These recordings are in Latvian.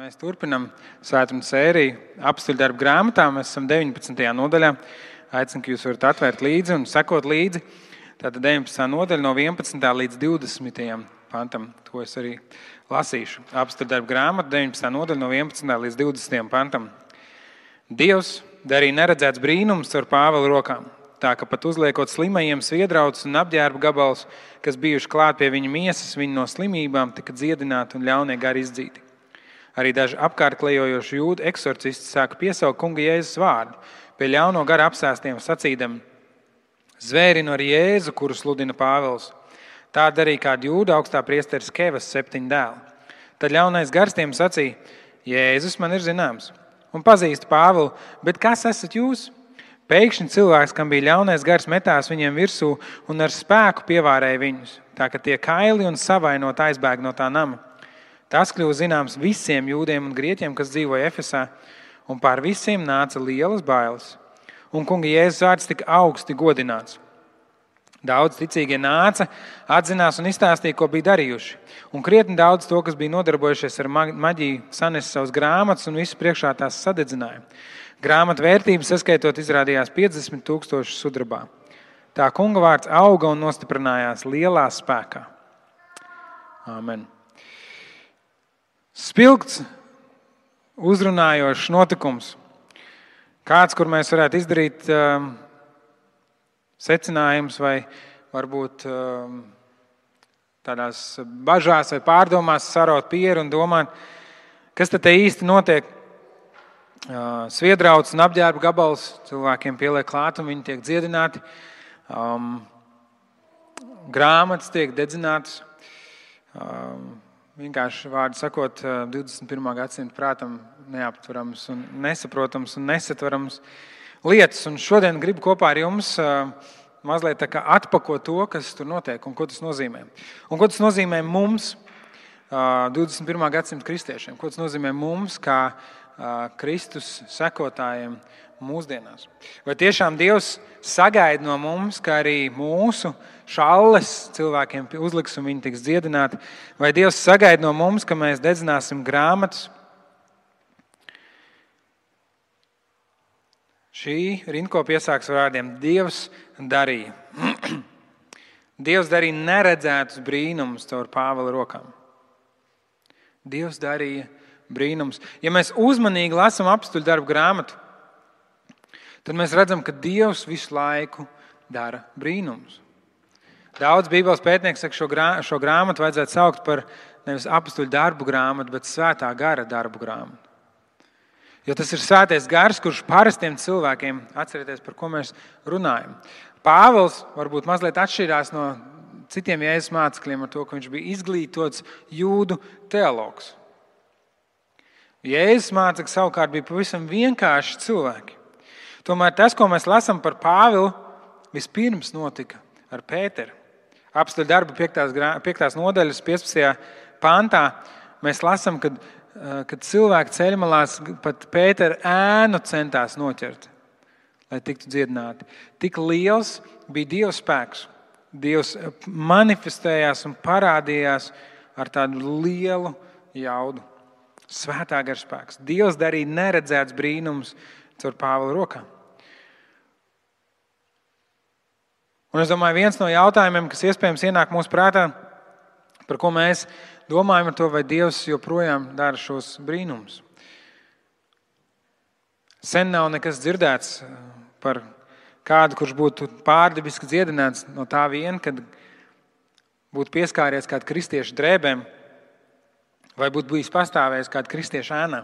Mēs turpinam svētdienas sēriju apstuļdarbu grāmatā. Mēs esam 19. nodaļā. Aicinu, ka jūs varat atvērt līdzi un sekot līdzi. Tātad 19. nodaļa no 11. līdz 20. pantam. To es arī lasīšu. Apstuļdarbu grāmata 19. nodaļa no 11. līdz 20. pantam. Dievs darīja neredzēts brīnums ar Pāvela rokām. Tā, ka pat uzliekot slimajiem sviedrautus un apģērba gabalus, kas bijuši klāt pie viņa miesas, viņi no slimībām tika dziedināti un ļaunie gari izdzīti. Arī daži apkārt klejojoši jūdu eksorcisti sāka piesaukt kunga Jēzus vārdu pie ļauno gara apsēstiem sacīdami: Zvērinu ar Jēzu, kuru sludina Pāvils. Tā darīja kāda jūda augstā priesteris Kevas 7 dēli. Tad ļaunais gars tiem sacīja: Jēzus man ir zināms un pazīstu Pāvilu, bet kas esat jūs? Pēkšņi cilvēks, kam bija ļaunais gars, metās viņiem virsū un ar spēku pievārēja viņus, tā ka tie kaili un savainot aizbēg no tā nama. Tas kļuva zināms visiem jūdiem un grieķiem, kas dzīvoja Efesā, un pār visiem nāca lielas bailes. Un kunga Jēzus vārds tika augsti godināts. Daudz ticīgie nāca, atzinās un izstāstīja, ko bija darījuši. Un krietni daudz to, kas bija nodarbojušies ar maģiju, sanesa savus grāmatas un visu priekšā tās sadedzināja. Grāmatu vērtības saskaitot izrādījās 50,000 sudrabā. Tā kunga vārds auga un nostiprinājās lielā spēkā. Āmen. Spilgts, uzrunājošs notikums. Kāds, kur mēs varētu izdarīt secinājums vai varbūt tādās bažās vai pārdomās saraut pieru un domāt, kas tad te īsti notiek. Sviedrauts un apģērba gabals cilvēkiem pieliek klāt un viņi tiek dziedināti. Grāmatas tiek dedzinātas. Vienkārši vārdu sakot, 21. gadsimta prātam neaptverams un nesaprotams un nesatverams lietas. Un šodien gribu kopā ar jums mazliet tā kā atpakot to, kas tur notiek un ko tas nozīmē. Un ko tas nozīmē mums, 21. gadsimta kristiešiem. Ko tas nozīmē mums, kā Kristus sekotājiem mūsdienās. Vai tiešām Dievs sagaida no mums, ka arī mūsu šalles cilvēkiem uzliks un viņi tiks dziedināti? Vai Dievs sagaida no mums, ka mēs dedzināsim grāmatas? Šī rindkopa iesāks vārdiem: Dievs darīja. Dievs darīja neredzētus brīnumus caur Pāvela rokām. Dievs darīja brīnums. Ja mēs uzmanīgi lasām apstuļdarbu grāmatu, tad mēs redzam, ka Dievs visu laiku dara brīnumus. Daudz Bībeles pētnieki saka, šo grāmatu vajadzētu saukt par nevis apstuļdarbu grāmatu, bet svētā gara darbu grāmatu. Jo tas ir svētais gars, kurš parastiem cilvēkiem, atcerieties, par ko mēs runājam. Pāvils varbūt mazliet atšķirās no citiem Jēzus mācekļiem ar to, ka viņš bija izglītots jūdu teologs. Jēzus mācekļi savukārt bija pavisam vienkārši cilvēki. Tomēr tas, ko mēs lasām par Pāvilu, vispirms notika ar Pēteru. Apstuļdarbu 5. nodaļas 15. pantā mēs lasām, kad cilvēki ceļmalās pat Pētera ēnu centās noķert, lai tiktu dziedināti. Tik liels bija Dieva spēks. Dievs manifestējās un parādījās ar tādu lielu jaudu. Svētā gara spēks. Dievs darīja neredzēts brīnums caur Pāvela rokām. Un es domāju, viens no jautājumiem, kas iespējams ienāk mūsu prātā, par ko mēs domājam ar to, vai Dievs joprojām dara šos brīnumus. Sen nav nekas dzirdēts par kādu, kurš būtu pārdabiski dziedināts no tā vien, kad būtu pieskāries kādu kristiešu drēbēm, vai būtu bijis pastāvējis kāda kristieša ēnā.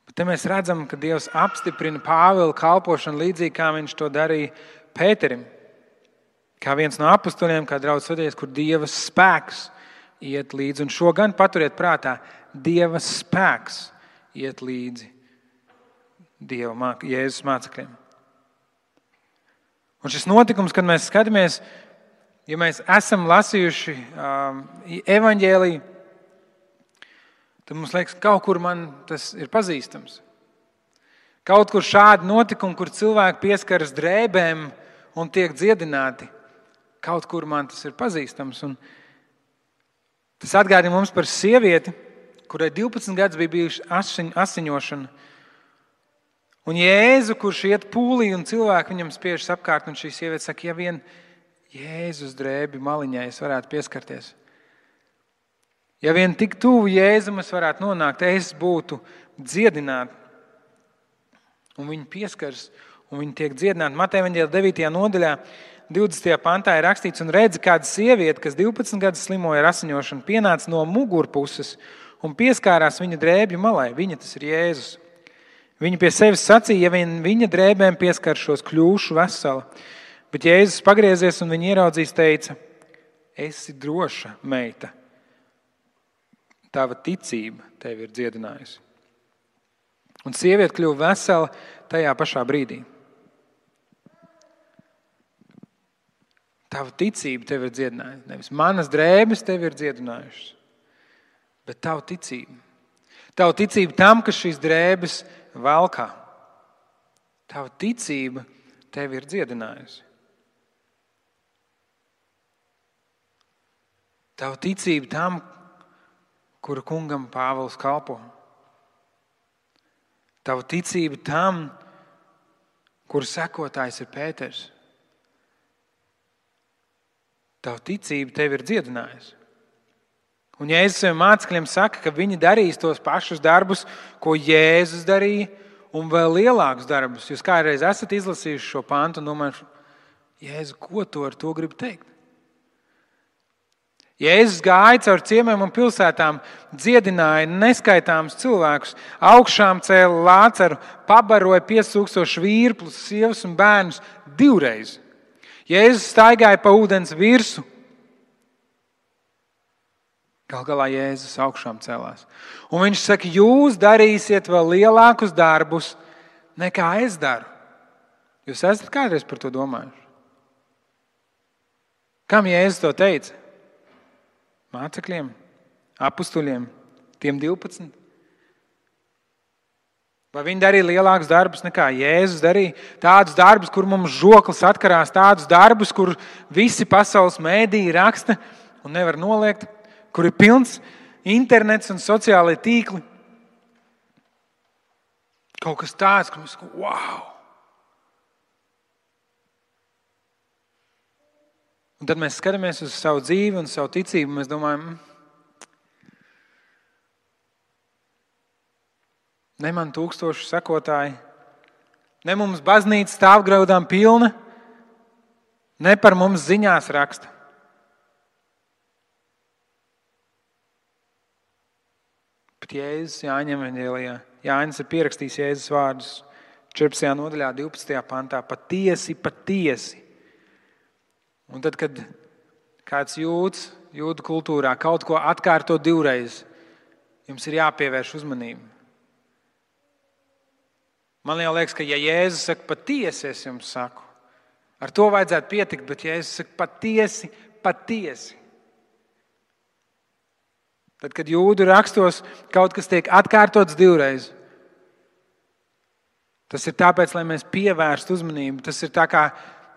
Bet te mēs redzam, ka Dievs apstiprina Pāvila kalpošanu līdzīgi, kā viņš to darīja Pēterim. Kā viens no apustuļiem, kā draudz svētīties, kur Dieva spēks iet līdzi. Un šo gan paturiet prātā. Dieva spēks iet līdzi Jēzus mācekļiem. Un šis notikums, kad mēs skatāmies, ja mēs esam lasījuši evaņģēliju, tad mums liekas, kaut kur man tas ir pazīstams. Kaut kur šādi notikumi, kur cilvēki pieskaras drēbēm un tiek dziedināti, kaut kur man tas ir pazīstams. Un Tas atgādina mums par sievieti, kurai 12 gadus bija bijuši asiņošana. Un Jēzu, kurš iet pūlī un cilvēki viņam spiežas apkārt, un šī sieviete saka, ja vien Jēzus drēbi maliņai es varētu pieskarties. Ja vien tik tuvu Jēzum es varētu nonākt, es būtu dziedināta. Un viņi pieskaras, un viņi tiek dziedināti. Mateja evaņģēlija 9. nodaļā, 20. pantā ir rakstīts, un redzi, kāda sieviete, kas 12 gadus slimoja ar asiņošanu, pienāca no mugurpuses un pieskārās viņa drēbju malai. Viņa, tas ir Jēzus. Viņa pie sevis sacīja, ja vien viņa drēbēm pieskaršos, kļūšu vesela. Bet Jēzus pagriezies un viņa ieraudzījis, teica, esi droša, meita. Tava ticība tevi ir dziedinājusi. Un sieviete kļuva vesela tajā pašā brīdī. Tava ticība tevi ir dziedinājusi. Nevis manas drēbes tevi ir dziedinājušas, bet tava ticība. Tava ticība tam, ka šīs drēbes valkā. Tava ticība tevi ir dziedinājusi. Tava ticība tam, kura kungam Pāvils kalpo. Tava ticība tam, kura sekotājs ir Pēters. Tava ticība tevi ir dziedinājusi. Un Jēzus saviem mācekļiem saka, ka viņi darīs tos pašus darbus, ko Jēzus darīja, un vēl lielākus darbus. Jūs kādreiz esat izlasījuši šo pantu un domājuši, Jēzu, ko tu ar to gribi teikt? Jēzus gāja caur ciemiem un pilsētām, dziedināja neskaitāmus cilvēkus, augšām cēla Lācaru, pabaroja 5000 vīrplus, sievas un bērnus 2 reizes. Jēzus staigāja pa ūdens virsu. Gal galā Jēzus augšām celās. Un viņš saka, jūs darīsiet vēl lielākus darbus, nekā es daru. Jūs esat kādreiz par to domājuši? Kam Jēzus to teica? Mācekļiem, apustuļiem, tiem 12? Vai viņi darīja lielākus darbus nekā Jēzus darīja? Tādus darbus, kur mums žoklis atkarās, tādus darbus, kur visi pasaules mēdīji raksta un nevar noliegt, kur ir pilns internets un sociālai tīkli. Kaut kas tāds, ka mēs sakām, wow! Un tad mēs skatāmies uz savu dzīvi un savu ticību, un mēs domājam, ne man 1000 sekotāji, ne mums baznīca stāvgraudām pilna, ne par mums ziņās raksta. Bet Jēzus Jāņa evaņģēlijā, Jānis ir pierakstījis Jēzus vārdus 14. nodaļā, 12. pantā, patiesi, patiesi. Un tad, kad kāds jūdu kultūrā kaut ko atkārto 2 reizes, jums ir jāpievērš uzmanība. Man jau liekas, ka ja Jēzus saka patiesi, es jums saku, ar to vajadzētu pietikt, bet Jēzus saka patiesi, patiesi. Tad, kad jūdu rakstos kaut kas tiek atkārtots 2 reizes, tas ir tāpēc, lai mēs pievērstu uzmanību. Tas ir tā kā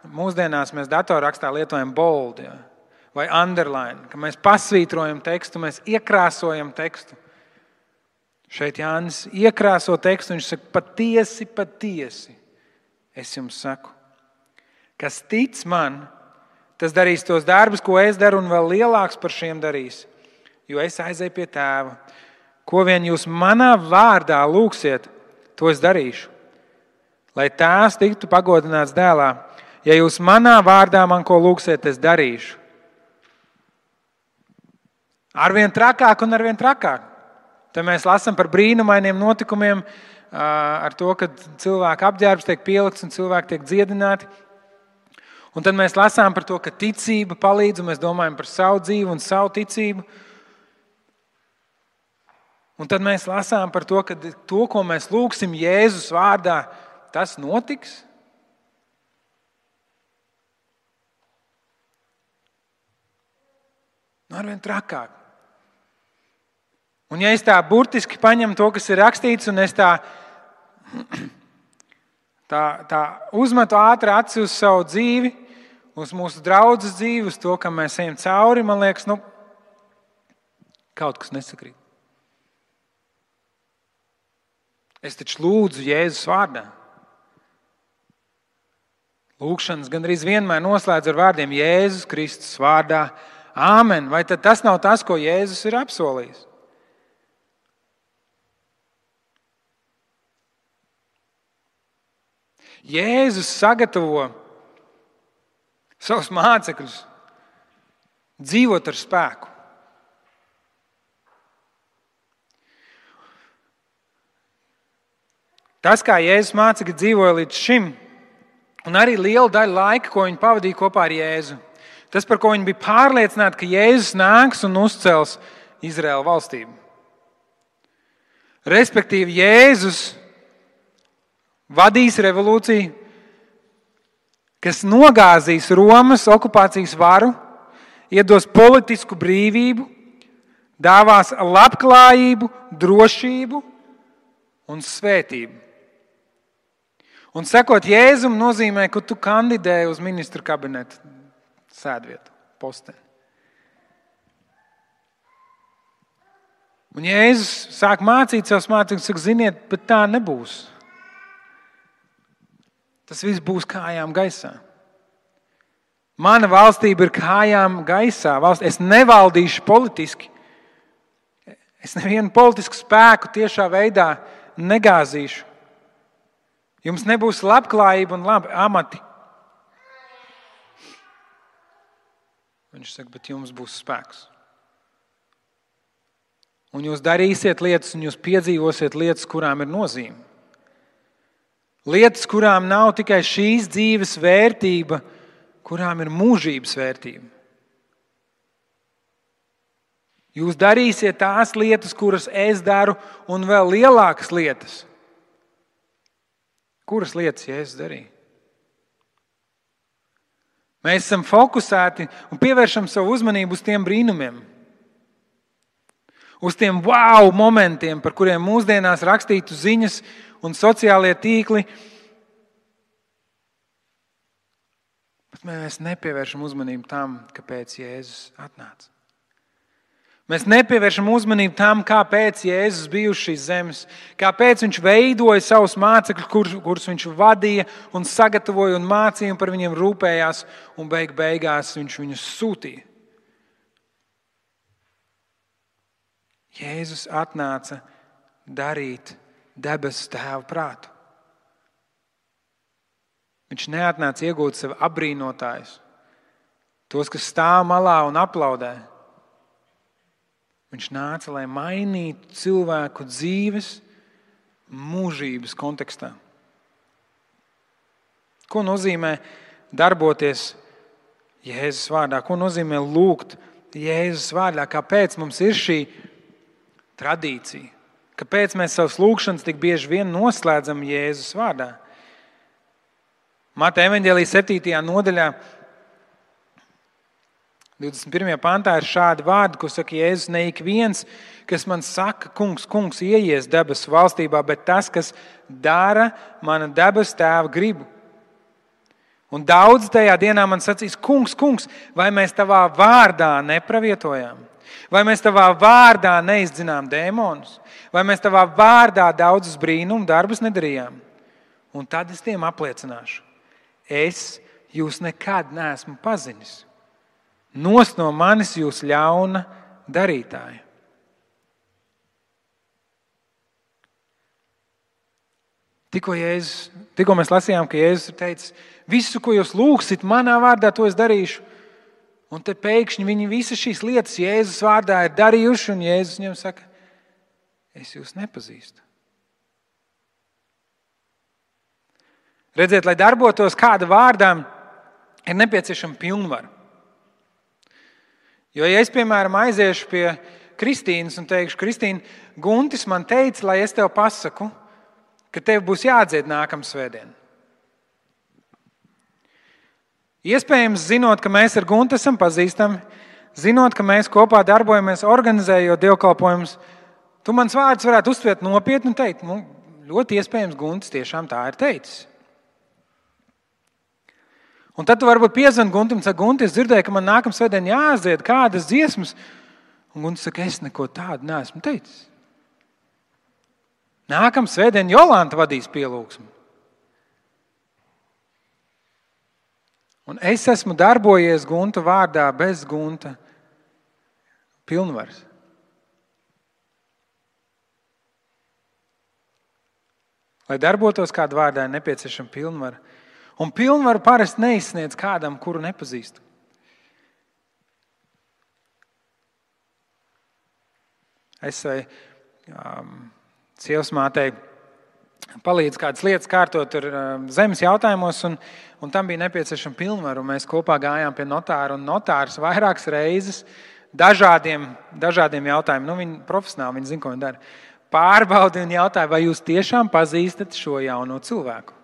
mūsdienās mēs datorrakstā lietojam bold, ja, vai underline, ka mēs pasvītrojam tekstu, mēs iekrāsojam tekstu. Šeit Jānis iekrāso tekstu, viņš saka, patiesi, patiesi, es jums saku. Kas tic man, tas darīs tos darbus, ko es daru, un vēl lielāks par šiem darīs, jo es aizēju pie tēva. Ko vien jūs manā vārdā lūgsiet, to es darīšu, lai tēvs tiktu pagodināts dēlā. Ja jūs manā vārdā man ko lūgsiet, es darīšu. Arvien trakāk un arvien trakāk. Te mēs lasām par brīnumainiem notikumiem, ar to, ka cilvēku apģērbs tiek pielikts un cilvēki tiek dziedināti. Un tad mēs lasām par to, ka ticība palīdz, un mēs domājam par savu dzīvi un savu ticību. Un tad mēs lasām par to, ka to, ko mēs lūgsim Jēzus vārdā, tas notiks. Arvien trakāk. Un ja es tā burtiski paņemu to, kas ir rakstīts, un es tā uzmetu ātri aci uz savu dzīvi, uz mūsu draudzes dzīvi, uz to, kam mēs ejam cauri, man liekas, Kaut kas nesakrīt. Es taču lūdzu Jēzus vārdā. Lūgšanas gandrīz vienmēr noslēdz ar vārdiem Jēzus Kristus vārdā. Āmen. Vai tad tas nav tas, ko Jēzus ir apsolījis? Jēzus sagatavo savus mācekļus dzīvot ar spēku. Tas, kā Jēzus mācekļi dzīvoja līdz šim, un arī liela daļa laika, ko viņi pavadīja kopā ar Jēzu, tas, par ko viņi bija pārliecināti, ka Jēzus nāks un uzcels Izraēla valstību. Respektīvi, Jēzus vadīs revolūciju, kas nogāzīs Romas okupācijas varu, iedos politisku brīvību, dāvās labklājību, drošību un svētību. Un sekot Jēzum nozīmē, ka tu kandidē uz ministru kabineta sēdvietu, posteni. Un Jēzus sāk mācīt savus mācekļus, saka, ziniet, bet tā nebūs. Tas viss būs kājām gaisā. Mana valstība ir kājām gaisā. Es nevaldīšu politiski. Es nevienu politisku spēku tiešā veidā negāzīšu. Jums nebūs labklājība un labi amati. Viņš saka, bet jums būs spēks. Un jūs darīsiet lietas, un jūs piedzīvosiet lietas, kurām ir nozīme. Lietas, kurām nav tikai šīs dzīves vērtība, kurām ir mūžības vērtība. Jūs darīsiet tās lietas, kuras es daru, un vēl lielākas lietas. Kuras lietas Jēzus darīja? Mēs esam fokusēti un pievēršam savu uzmanību uz tiem brīnumiem. Uz tiem wow momentiem, par kuriem mūsdienās rakstītu ziņas un sociālie tīkli. Bet mēs nepievēršam uzmanību tam, kāpēc Jēzus atnāca. Mēs nepievēršam uzmanību tam, kāpēc Jēzus bija uz šīs zemes, kāpēc viņš veidoja savus mācekļus, kurus viņš vadīja un sagatavoja un mācīja un par viņiem rūpējās, un beigās viņš viņus sūtīja. Jēzus atnāca darīt debesu Tēva prātu. Viņš neatnāca iegūt sev apbrīnotājus, tos, kas stāv malā un aplaudē. Viņš nāca, lai mainītu cilvēku dzīves mūžības kontekstā. Ko nozīmē darboties Jēzus vārdā? Ko nozīmē lūgt Jēzus vārdā? Kāpēc mums ir šī tradīcija? Kāpēc mēs savas lūgšanas tik bieži vien noslēdzam Jēzus vārdā? Mateja evaņģēlija 7. nodaļā 21. pantā ir šādi vārdi, ko saka Jēzus: ne ik viens, kas man saka, kungs, kungs, ieies debesu valstībā, bet tas, kas dara mana debesu Tēva gribu. Un daudz tajā dienā man sacīs: kungs, kungs, vai mēs tavā vārdā nepravietojām? Vai mēs tavā vārdā neizdzinām dēmonus? Vai mēs tavā vārdā daudzus brīnumu darbus nedarījām? Un tad es tiem apliecināšu: es jūs nekad neesmu pazinis. Nost no manis jūs ļauna darītāji. Tikko mēs lasījām, ka Jēzus ir teicis: visu, ko jūs lūgsit manā vārdā, to es darīšu. Un te pēkšņi viņi visas šīs lietas Jēzus vārdā ir darījuši, un Jēzus viņiem saka: es jūs nepazīstu. Redziet, lai darbotos kāda vārdā, ir nepieciešama pilnvara. Jo, ja es, piemēram, aiziešu pie Kristīnas un teikšu: Kristīna, Guntis man teica, lai es tev pasaku, ka tev būs jādzied nākamā svētdiena. Iespējams, zinot, ka mēs ar Guntu esam pazīstami, zinot, ka mēs kopā darbojamies, organizējot dievkalpojumus, tu mans vārdus varētu uztvert nopietni un teikt: ļoti iespējams, Guntis tiešām tā ir teicis. Un tad tu varbūt piezvani Guntim un saki: Gunti, es dzirdēju, ka man nākamā svētdiena jāaiziet kādas dziesmas. Un Gunta saka, es neko tādu neesmu teicis. Nākamā svētdien Jolanta vadīs pielūgsmu. Un es esmu darbojies Gunta vārdā bez Gunta pilnvaras. Lai darbotos kādu vārdā, ir nepieciešama pilnvara. Un pilnvaru parasti neizsniedz kādam, kuru nepazīstu. Es savai sievas mātei palīdzu kādas lietas kārtot tur zemes jautājumos, un tam bija nepieciešama pilnvaru. Mēs kopā gājām pie notāra, un notārs vairākas reizes dažādiem jautājumiem, viņi profesionāli, viņi zina, ko viņi dara, pārbaudi un jautāja, vai jūs tiešām pazīstat šo jauno cilvēku?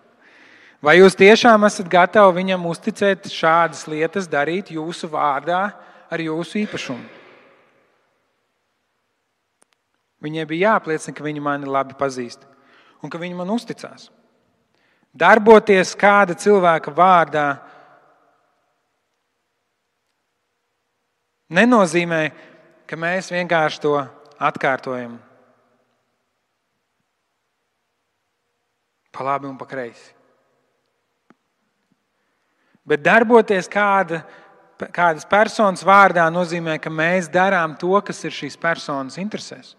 Vai jūs tiešām esat gatavi viņam uzticēt šādas lietas darīt jūsu vārdā ar jūsu īpašumu? Viņai bija jāapliecina, ka viņi mani labi pazīst un ka viņi man uzticās. Darboties kāda cilvēka vārdā nenozīmē, ka mēs vienkārši to atkārtojam pa labi un pa kreisi. Bet darboties kādas personas vārdā nozīmē, ka mēs darām to, kas ir šīs personas interesēs.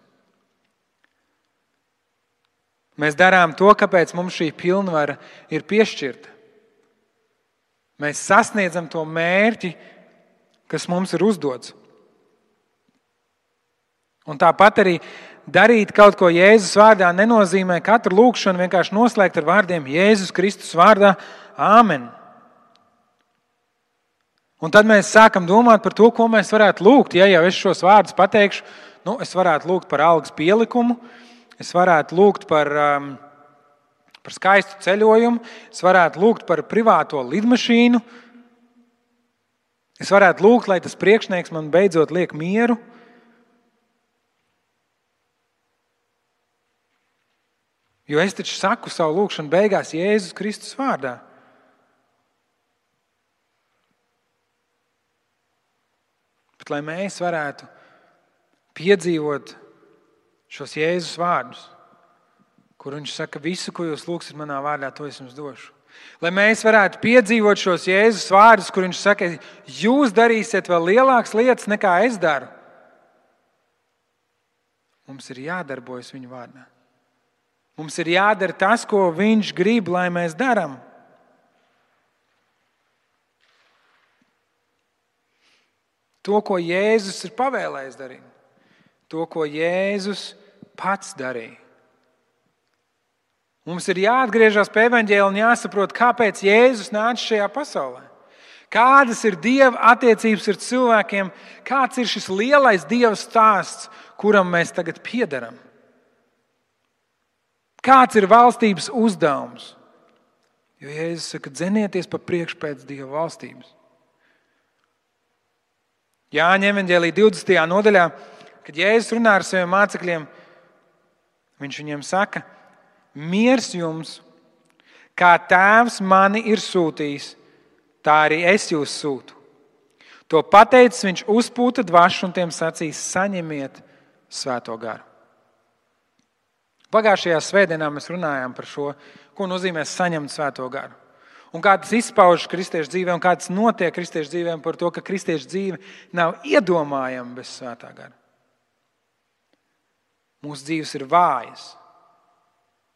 Mēs darām to, kāpēc mums šī pilnvara ir piešķirta. Mēs sasniedzam to mērķi, kas mums ir uzdots. Un tāpat arī darīt kaut ko Jēzus vārdā nenozīmē katru lūgšanu vienkārši noslēgt ar vārdiem Jēzus Kristus vārdā Āmen. Un tad mēs sākam domāt par to, ko mēs varētu lūgt. Ja jau es šos vārdus pateikšu, es varētu lūgt par algas pielikumu, es varētu lūgt par skaistu ceļojumu, es varētu lūgt par privāto lidmašīnu, es varētu lūgt, lai tas priekšnieks man beidzot liek mieru. Jo es taču saku savu lūgšanu beigās Jēzus Kristus vārdā. Bet lai mēs varētu piedzīvot šos Jēzus vārdus, kur viņš saka, visu, ko jūs lūgsiet manā vārdā, to es jums došu. Lai mēs varētu piedzīvot šos Jēzus vārdus, kur viņš saka, jūs darīsiet vēl lielākas lietas, nekā es daru. Mums ir jādarbojas viņa vārdā. Mums ir jādara tas, ko viņš grib, lai mēs darām. To, ko Jēzus ir pavēlējis darīt. To, ko Jēzus pats darīja. Mums ir jāatgriežas pie evaņģēļa un jāsaprot, kāpēc Jēzus nāca šajā pasaulē. Kādas ir Dieva attiecības ar cilvēkiem, kāds ir šis lielais Dieva stāsts, kuram mēs tagad piederam. Kāds ir valstības uzdevums? Jo Jēzus saka, dzenieties pa priekšu pēc Dieva valstības. Jāņa evaņģēlī 20. nodaļā, kad Jēzus runā ar saviem mācekļiem, viņš viņiem saka, miers jums, kā tēvs mani ir sūtījis, tā arī es jūs sūtu. To pateicis, viņš uzpūta dvašu un tiem sacīs, saņemiet Svēto garu. Pagājušajā svētdienā mēs runājām par šo, ko nozīmē saņemt Svēto garu. Un kā tas izpaužas kristiešu dzīvē un kā tas notiek kristiešu dzīvēm par to, ka kristiešu dzīve nav iedomājama bez Svētā gara. Mūsu dzīves ir vājas,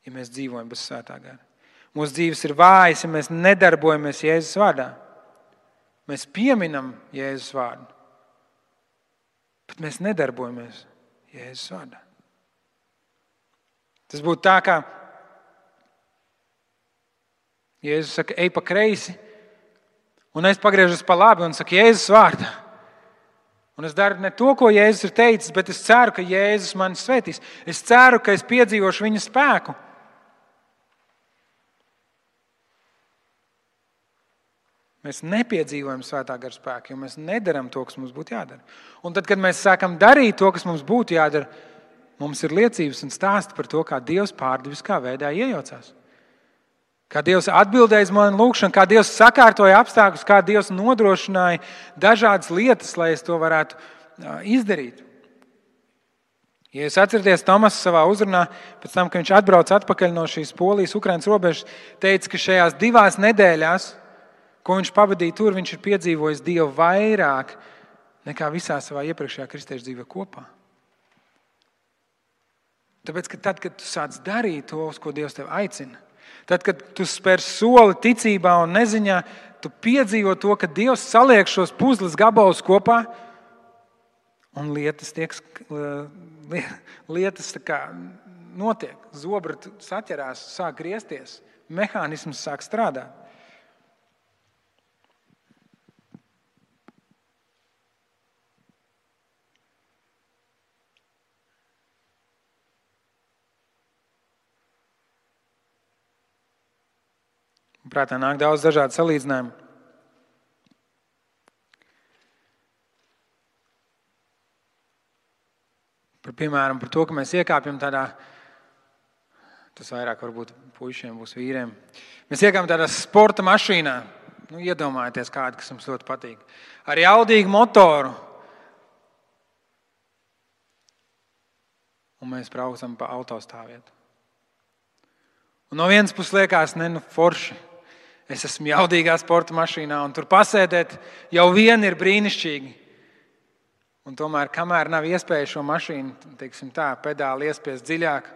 ja mēs dzīvojam bez Svētā gara. Mūsu dzīves ir vājas, ja mēs nedarbojamies Jēzus vārdā. Mēs pieminam Jēzus vārdu, bet mēs nedarbojamies Jēzus vārdā. Tas būtu tā, kā Jēzus saka, ej pa kreisi, un es pagriežos pa labi un saku Jēzus vārdā. Un es daru ne to, ko Jēzus ir teicis, bet es ceru, ka Jēzus mani svētīs. Es ceru, ka es piedzīvošu viņa spēku. Mēs nepiedzīvojam Svētā gara spēku, jo mēs nedaram to, kas mums būtu jādara. Un tad, kad mēs sākam darīt to, kas mums būtu jādara, mums ir liecības un stāsti par to, kā Dievs pārdabiskā veidā iejaucās. Kā Dievs atbildēja uz manu lūgšanu, kā Dievs sakārtoja apstākļus, kā Dievs nodrošināja dažādas lietas, lai es to varētu izdarīt. Ja jūs atceraties, Tomas savā uzrunā, pēc tam, kad viņš atbrauca atpakaļ no šīs Polijas-Ukrainas robežas, teica, ka šajās 2 nedēļās, ko viņš pavadīja tur, viņš ir piedzīvojis Dievu vairāk nekā visā savā iepriekšējā kristiešu dzīvē kopā. Tāpēc, ka tad, kad tu sāc darīt to, uz ko Dievs tevi aicina, tad, kad tu spēr soli ticībā un neziņā, tu piedzīvo to, ka Dievs saliek šos puzles gabalus kopā un lietas tā kā notiek. Zobra saķerās, sāk griezties, mehānisms sāk strādāt. Prātā nāk daudz dažādu salīdzinājumu. Piemēram, par to, ka mēs iekāpjam tādā, tas vairāk varbūt puišiem būs vīriem, mēs iekāpjam tādā sporta mašīnā, iedomājieties kādu, kas jums ļoti patīk, ar jaudīgu motoru, un mēs braucam pa autostāvvietu. Un no vienas puses liekas, forši, es esmu jaudīgā sporta mašīnā, un tur pasēdēt jau vien ir brīnišķīgi. Un tomēr, kamēr nav iespēja šo mašīnu, pedāli iespiest dziļāk,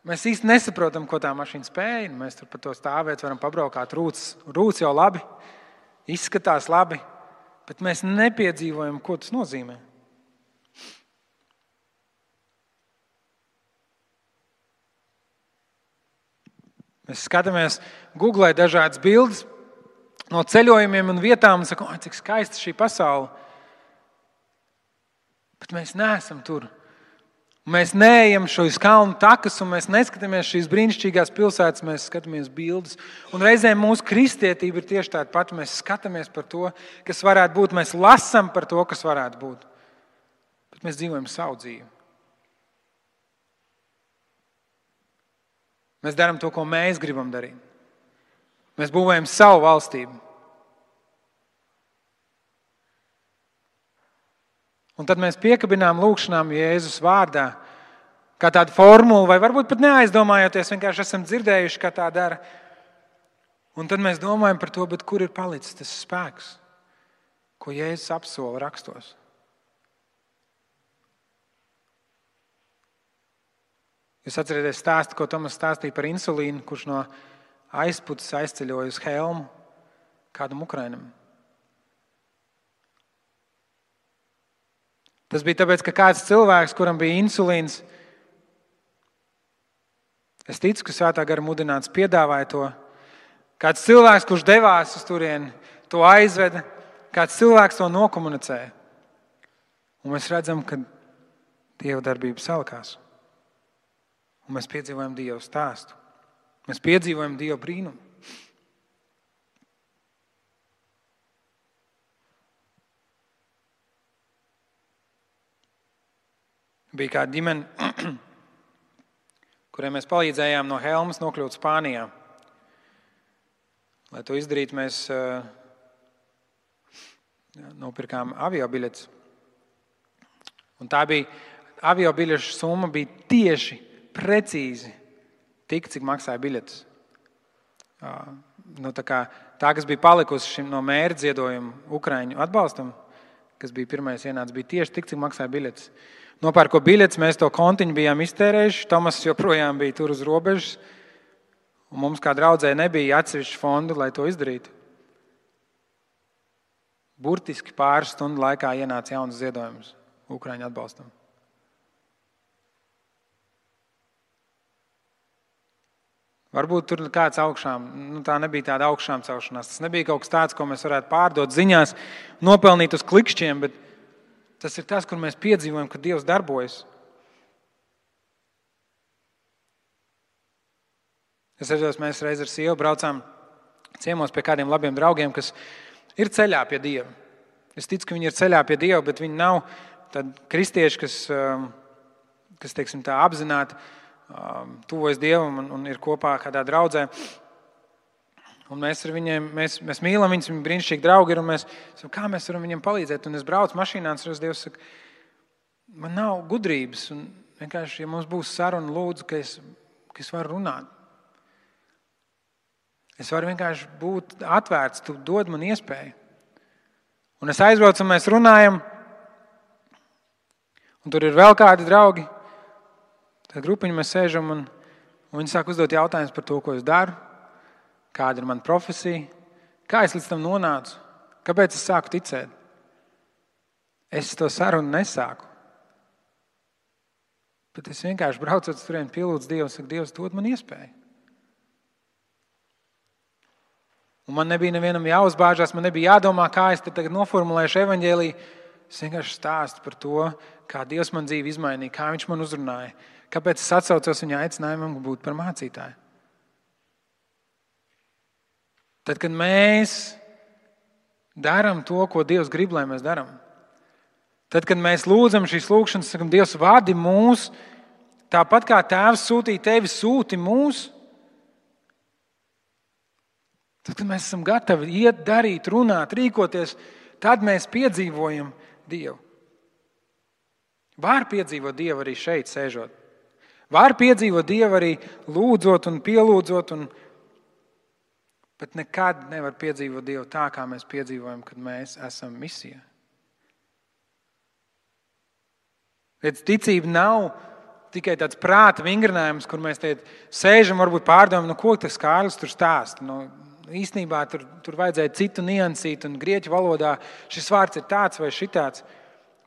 mēs īsti nesaprotam, ko tā mašīna spēja. Mēs tur pa to stāvēt, varam pabraukāt rūts jau labi, izskatās labi, bet mēs nepiedzīvojam, ko tas nozīmē. Mēs skatāmies, googlē dažādas bildes no ceļojumiem un vietām un sakam, cik skaista šī pasaule. Bet mēs neesam tur. Mēs neejam šos kalnu takas un mēs neskatāmies šīs brīnišķīgās pilsētas, mēs skatāmies bildes. Un reizēm mūsu kristietība ir tieši tāda pati. Mēs skatāmies par to, kas varētu būt. Mēs lasām par to, kas varētu būt. Bet mēs dzīvojam savu dzīvi. Mēs darām to, ko mēs gribam darīt. Mēs būvējam savu valstību. Un tad mēs piekabinām lūgšanām Jēzus vārdā, kā tādu formulu, vai varbūt pat neaizdomājoties, vienkārši esam dzirdējuši, kā tā dara. Un tad mēs domājam par to, bet kur ir palicis tas spēks, ko Jēzus apsola rakstos. Jūs atcerieties stāstu, ko Tomas stāstīja par insulīnu, kurš no aizputas aizceļoja uz Helmu kādam Ukrainam. Tas bija tāpēc, ka kāds cilvēks, kuram bija insulīns, es ticu, ka Svētā gara mudināts piedāvāja to. Kāds cilvēks, kurš devās uz turieni, to aizveda, kāds cilvēks to nokomunicēja. Un mēs redzam, ka Dieva darbība salikās. Un mēs piedzīvojam Dieva stāstu. Mēs piedzīvojam Dieva brīnumu. Bija kāda ģimene, kurai mēs palīdzējām no Helmas nokļūt Spānijā. Lai to izdarītu, mēs nopirkām aviobiļetes. Un tā bija, aviobiļešu summa bija tieši, precīzi tik, cik maksāja biļetes. Tā, kas bija palikusi no mēra ziedojuma Ukraiņu atbalstam, kas bija pirmais ienācis, bija tieši tik, cik maksāja biļetes. Nopērko biļetes, mēs to kontiņu bijām iztērējuši, Tomas joprojām bija tur uz robežas, un mums kā draudzē nebija atsevišķu fondu, lai to izdarītu. Burtiski pāris stundu laikā ienāca jauns ziedojums Ukraiņu atbalstam. Varbūt tur kāds augšām, tā nebija tāda augšām celšanās, tas nebija kaut kas tāds, ko mēs varētu pārdot ziņās, nopelnīt uz klikšķiem, bet tas ir tas, kur mēs piedzīvojam, ka Dievs darbojas. Es atceros, mēs reiz ar sievu braucām ciemos pie kādiem labiem draugiem, kas ir ceļā pie Dieva. Es ticu, ka viņi ir ceļā pie Dieva, bet viņi nav tādi kristieši, kas teiksim tā, apzināti tuvojas Dievam un ir kopā kādā draudzē. Un mēs ar viņiem, mēs mīlam viņus, viņi brīnišķīgi draugi ir, un mēs sakam, kā mēs varam viņiem palīdzēt. Un es braucu mašīnā, un Dievs saka, man nav gudrības, un Vienkārši, ja mums būs saruna, lūdzu, ka es varu runāt. Es varu vienkārši būt atvērts, tu dod man iespēju. Un es aizbraucu, un mēs runājam, un tur ir vēl kādi draugi. Tad grupiņi mēs sēžam, un viņi sāk uzdot jautājumus par to, ko es daru, kāda ir mana profesija, kā es līdz tam nonācu, kāpēc es sāku ticēt. Es to sarunu nesāku. Bet es vienkārši braucot uz turieni, pielūdzu Dievu, saku, Dievs, dod man iespēju. Un man nebija nevienam jāuzbāžās, man nebija jādomā, kā es tagad noformulēšu evaņģēliju. Es vienkārši stāstu par to, kā Dievs man dzīvi izmainīja, kā viņš man uzrunāja, kāpēc es atsaucos viņa aicinājumam būt par mācītāju. Tad, kad mēs darām to, ko Dievs grib, lai mēs darām, tad, kad mēs lūdzam šīs lūgšanas, sakam, Dievs vadi mūs, tāpat kā Tēvs sūtīja tevi, sūti mūs, tad, kad mēs esam gatavi iet, darīt, runāt, rīkoties, tad mēs piedzīvojam Dievu. Var piedzīvot Dievu arī šeit sēžot. Var piedzīvot Dievu arī lūdzot un pielūdzot, bet nekad nevar piedzīvot Dievu tā, kā mēs piedzīvojam, kad mēs esam misijā. Redz, ticība nav tikai tāds prāta vingrinājums, kur mēs sēžam, varbūt pārdomājam, ko tas Kārlis tur stāsta. Īstenībā tur vajadzēja citu niansīt, un grieķu valodā šis vārds ir tāds vai šitāds.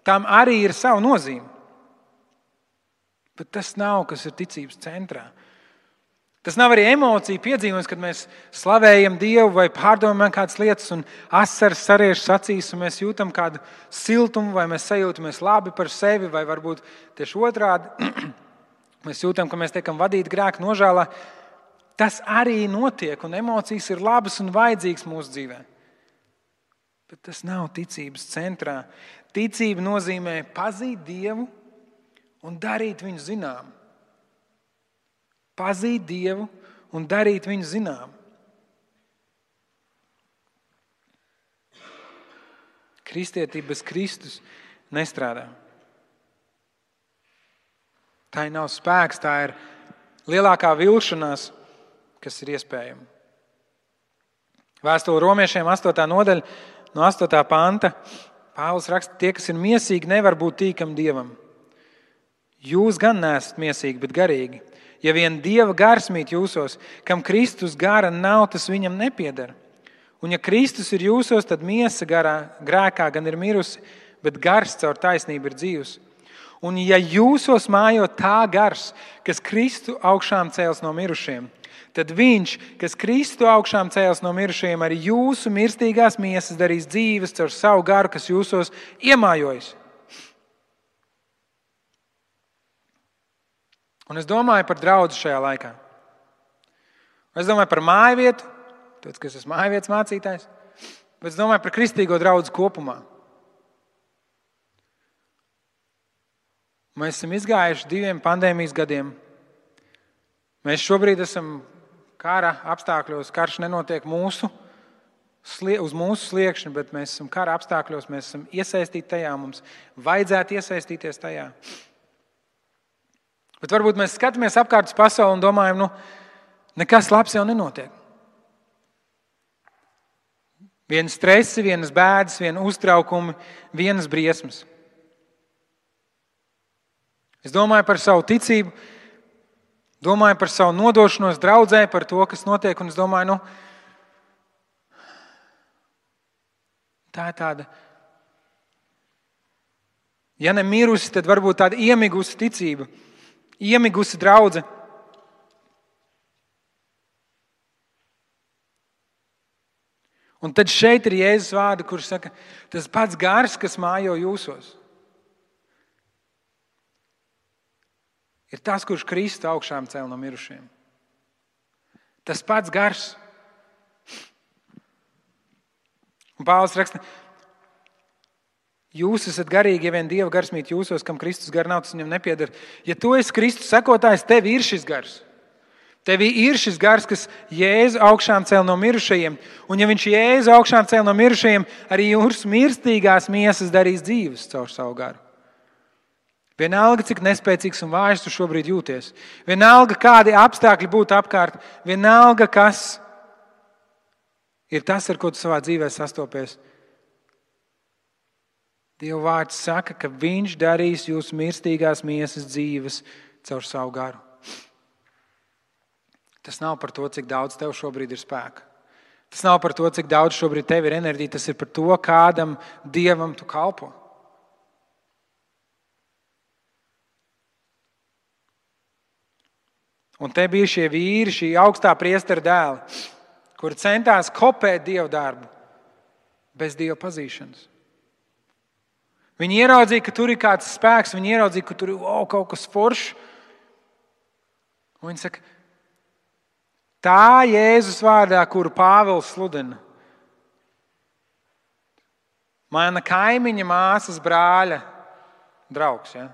Tam arī ir savu nozīme. Bet tas nav, kas ir ticības centrā. Tas nav arī emocija piedzīvojums, kad mēs slavējam Dievu vai pārdomājam kādas lietas un asaras sariežas acīs un mēs jūtam kādu siltumu vai mēs sajūtamies labi par sevi vai varbūt tieši otrādi. Mēs jūtam, ka mēs tiekam vadīti grēka nožēlā. Tas arī notiek un emocijas ir labas un vajadzīgas mūsu dzīvē. Bet tas nav ticības centrā. Ticība nozīmē pazīt Dievu un darīt viņu zinām. Pazīt Dievu un darīt viņu zinām. Kristietība bez Kristus nestrādā. Tā nav spēks, tā ir lielākā vilšanās, kas ir iespējama. Vēstule Romiešiem 8. nodaļa no 8. panta. Pāvils raksta, tie, kas ir miesīgi, nevar būt tīkami Dievam. Jūs gan neesat miesīgi, bet garīgi. Ja vien Dieva gars mīt jūsos, kam Kristus gara nav, tas viņam nepieder. Un ja Kristus ir jūsos, tad miesa grēkā gan ir mirusi, bet gars caur taisnību ir dzīvs. Un ja jūsos mājo tā gars, kas Kristu augšām cēls no mirušiem, tad viņš, kas Kristu augšām cēls no mirušajiem, arī jūsu mirstīgās miesas darīs dzīves caur savu garu, kas jūsos iemājojas. Un es domāju par draudzi šajā laikā. Es domāju par mājvietu, tāpēc, ka es esmu mājvietas mācītājs, bet es domāju par kristīgo draudzi kopumā. Mēs esam izgājuši 2 pandēmijas gadiem. Mēs šobrīd esam kara apstākļos, karš nenotiek uz mūsu sliekšņa, bet mēs esam kara apstākļos, mēs esam iesaistīti tajā, mums vajadzētu iesaistīties tajā. Bet varbūt mēs skatāmies apkārt uz pasauli un domājam, nekas labs jau nenotiek. Vienas stresi, vienas bēdas, vienas uztraukumi, vienas briesmas. Es domāju par savu ticību, domāju par savu nodošanos draudzē, par to, kas notiek, un es domāju, tā ir tāda, ja ne mirusi, tad varbūt tāda iemigusi ticība, iemigusi draudze. Un tad šeit ir Jēzus vārdi, kurš saka, tas pats gars, kas mājo jūsos, ir tas, kurš Kristu augšām cēl no mirušiem. Tas pats gars. Un Pāvils raksta, jūs esat garīgi, ja vien Dieva gars mīt jūsos, kam Kristus gar nav, tas viņam nepieder. Ja tu esi Kristus sekotājs, tev ir šis gars. Tev ir šis gars, kas Jēzu augšām cēl no mirušajiem. Un ja viņš Jēzu augšām cēl no mirušajiem, arī jūsu mirstīgās miesas darīs dzīves caur savu garu. Vienalga, cik nespēcīgs un vājš tu šobrīd jūties. Vienalga, kādi apstākļi būtu apkārt. Vienalga, kas ir tas, ar ko tu savā dzīvē sastopies. Dieva vārds saka, ka viņš darīs jūsu mirstīgās miesas dzīves caur savu garu. Tas nav par to, cik daudz tev šobrīd ir spēka. Tas nav par to, cik daudz šobrīd tev ir enerģija. Tas ir par to, kādam Dievam tu kalpo. Un te bija šie vīri, šī augstā priestera dēli, kuri centās kopēt Dieva darbu bez Dieva pazīšanas. Viņi ieraudzīja, ka tur ir kāds spēks, viņi ieraudzīja, ka tur ir kaut kas foršs. Un viņi saka, tā Jēzus vārdā, kuru Pāvils sludina, mana kaimiņa māsas brāļa draugs. Ja?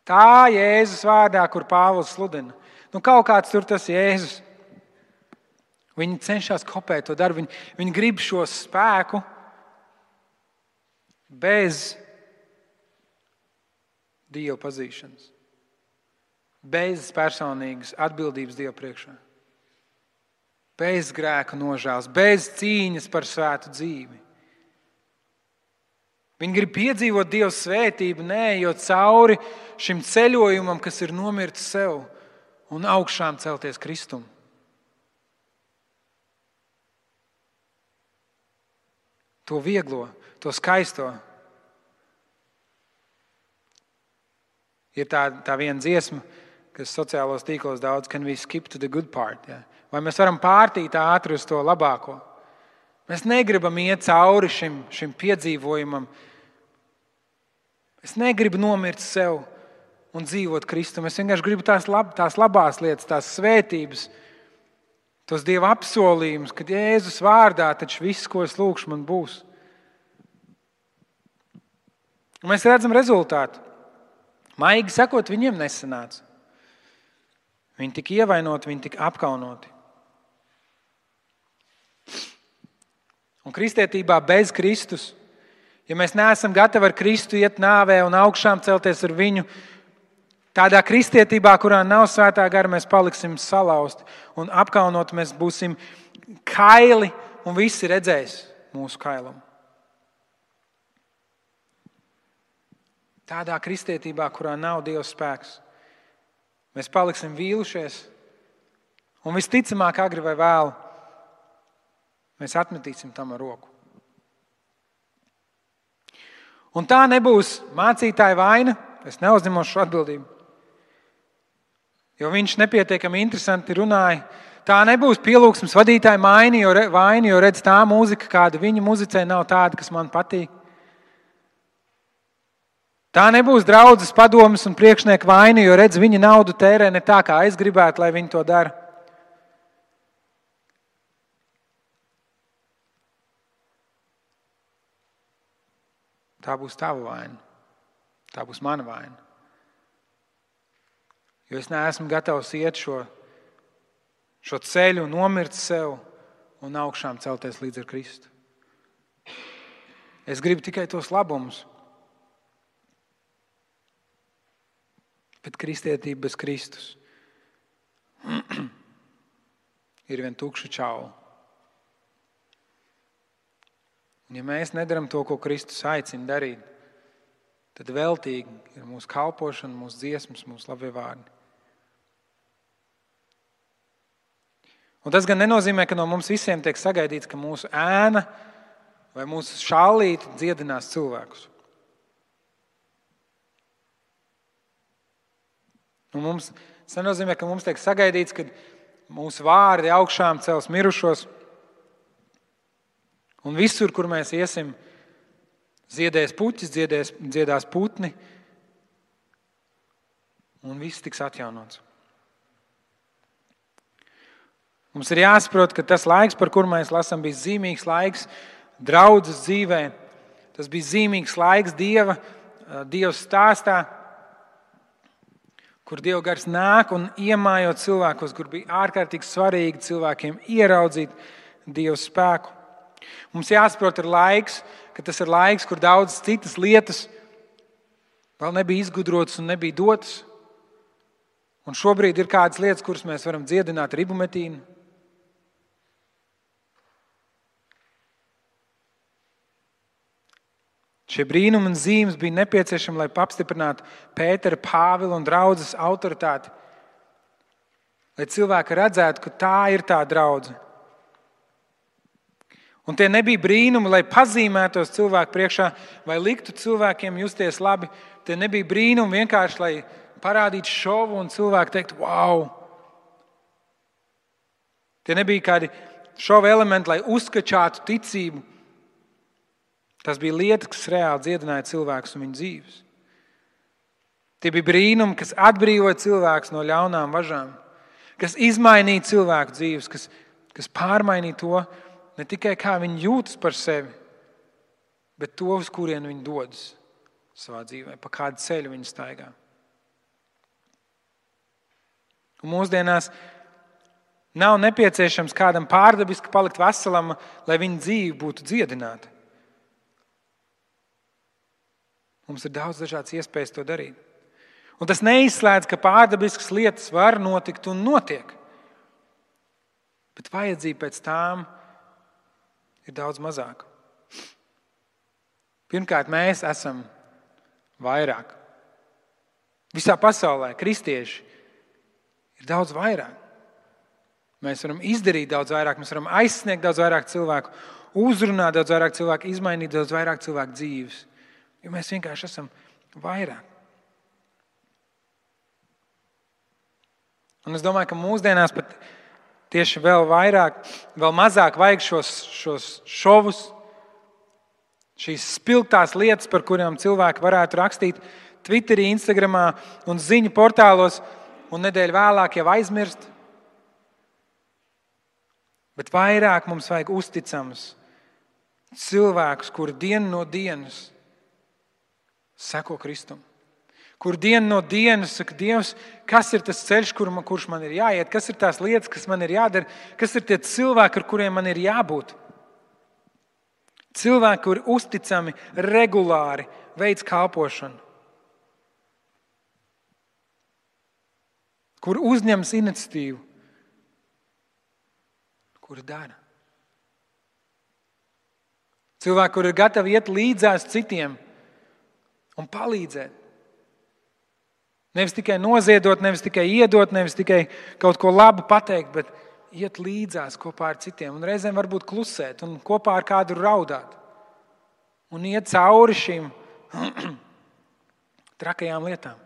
Tā Jēzus vārdā, kur Pāvils sludina. Kaut kāds tur tas Jēzus. Viņi cenšas kopēt to darbu. Viņi grib šo spēku bez Dieva pazīšanas. Bez personīgas atbildības Dieva priekšā. Bez grēka nožēlas, bez cīņas par svētu dzīvi. Viņi grib piedzīvot Dieva svētību, neejot cauri šim ceļojumam, kas ir nomirt sev un augšām celties Kristum. To vieglo, to skaisto. Ir tā viena dziesma, kas sociālos tīklos daudz, can we skip to the good part? Ja? Vai mēs varam pārtīt ātri uz to labāko? Mēs negribam iet cauri šim piedzīvojumam. Es negribu nomirt sev un dzīvot Kristum. Es vienkārši gribu tās labās lietas, tās svētības, tos Dieva apsolījumus, kad Jēzus vārdā taču viss, ko es lūkšu, man būs. Un mēs redzam rezultātu. Maigi sakot, viņiem nesanāca. Viņi tika ievainoti, viņi tika apkaunoti. Un kristietībā bez Kristus, ja mēs neesam gatavi ar Kristu iet nāvē un augšām celties ar viņu, tādā kristietībā, kurā nav svētā gara, mēs paliksim salauzti un apkaunoti, mēs būsim kaili un visi redzēs mūsu kailumu. Tādā kristietībā, kurā nav Dieva spēks, mēs paliksim vīlušies un visticamāk agri vai vēlu mēs atmetīsim tam ar roku. Un tā nebūs mācītāja vaina, es neuzņemos šo atbildību, jo viņš nepietiekami interesanti runāja. Tā nebūs pielūgsmes vadītāja vaina, jo redz tā mūzika, kāda viņa muzicē, nav tāda, kas man patīk. Tā nebūs draudzes padomes un priekšnieka vaina, jo redz viņa naudu tērē ne tā, kā es gribētu, lai viņi to dara. Tā būs tava vaina. Tā būs mana vaina. Jo es neesmu gatavs iet šo ceļu, nomirt sev un augšām celties līdz ar Kristu. Es gribu tikai tos labumus. Bet kristietība bez Kristus ir vien tukša čaula. Un ja mēs nedaram to, ko Kristus aicina darīt, tad veltīgi ir mūsu kalpošana, mūsu dziesmas, mūsu labie vārdi. Un tas gan nenozīmē, ka no mums visiem tiek sagaidīts, ka mūsu ēna vai mūsu šallīte dziedinās cilvēkus. Un tas nenozīmē, ka mums tiek sagaidīts, ka mūsu vārdi augšām cels mirušos. Un visur, kur mēs iesim, ziedēs puķis, dziedās putni, un viss tiks atjaunots. Mums ir jāsaprot, ka tas laiks, par kuru mēs lasām, bija zīmīgs laiks draudzes dzīvē. Tas bija zīmīgs laiks Dieva stāstā, kur Dieva gars nāk un iemājot cilvēkos, kur bija ārkārtīgi svarīgi cilvēkiem ieraudzīt Dieva spēku. Mums jāsaprot, ka tas ir laiks, kur daudzas citas lietas vēl nebija izgudrotas un nebija dotas. Un šobrīd ir kādas lietas, kuras mēs varam dziedināt ar ibumetīnu. Šie brīnumi un zīmes bija nepieciešami, lai apstiprinātu Pētera, Pāvila un draudzes autoritāti. Lai cilvēki redzētu, ka tā ir tā draudze. Un tie nebija brīnumi, lai pazīmētos cilvēku priekšā vai liktu cilvēkiem justies labi. Tie nebija brīnumi vienkārši, lai parādītu šovu un cilvēki teiktu, wow! Tie nebija kādi šova elementi, lai uzskačātu ticību. Tas bija lietas, kas reāli dziedināja cilvēkus un viņu dzīves. Tie bija brīnumi, kas atbrīvoja cilvēkus no ļaunām važām, kas izmainīja cilvēku dzīves, kas pārmainīja to, ne tikai kā viņi jūtas par sevi, bet to, uz kurien viņi dodas savā dzīvē, pa kādu ceļu viņi staigā. Un mūsdienās nav nepieciešams kādam pārdabiski palikt veselam, lai viņa dzīve būtu dziedināta. Mums ir daudz dažādas iespējas to darīt. Un tas neizslēdz, ka pārdabiskas lietas var notikt un notiek. Bet vajadzība pēc tām ir daudz mazāka. Pirmkārt, mēs esam vairāk. Visā pasaulē kristieši ir daudz vairāk. Mēs varam izdarīt daudz vairāk, mēs varam aizsniegt daudz vairāk cilvēku, uzrunāt daudz vairāk cilvēku, izmainīt daudz vairāk cilvēku dzīves. Jo mēs vienkārši esam vairāk. Un es domāju, ka mūsdienās pat tieši vēl vairāk, vēl mazāk vajag šos šovus, šīs spilgtās lietas, par kurām cilvēki varētu rakstīt Twitterī, Instagramā un ziņu portālos un nedēļu vēlāk jau aizmirst. Bet vairāk mums vajag uzticamus cilvēkus, kuri dienu no dienas seko Kristum. Kur dienu no dienas saka, Dievs, kas ir tas ceļš, kurš man ir jāiet, kas ir tās lietas, kas man ir jādara, kas ir tie cilvēki, ar kuriem man ir jābūt. Cilvēki, kuri uzticami, regulāri veic kalpošanu. Kur uzņemas iniciatīvu. Kuri dara. Cilvēki, kuri ir gatavi iet līdzās citiem un palīdzēt. Nevis tikai noziedot, nevis tikai iedot, nevis tikai kaut ko labu pateikt, bet iet līdzās kopā ar citiem. Un reizēm varbūt klusēt un kopā ar kādu raudāt. Un iet cauri šīm trakajām lietām.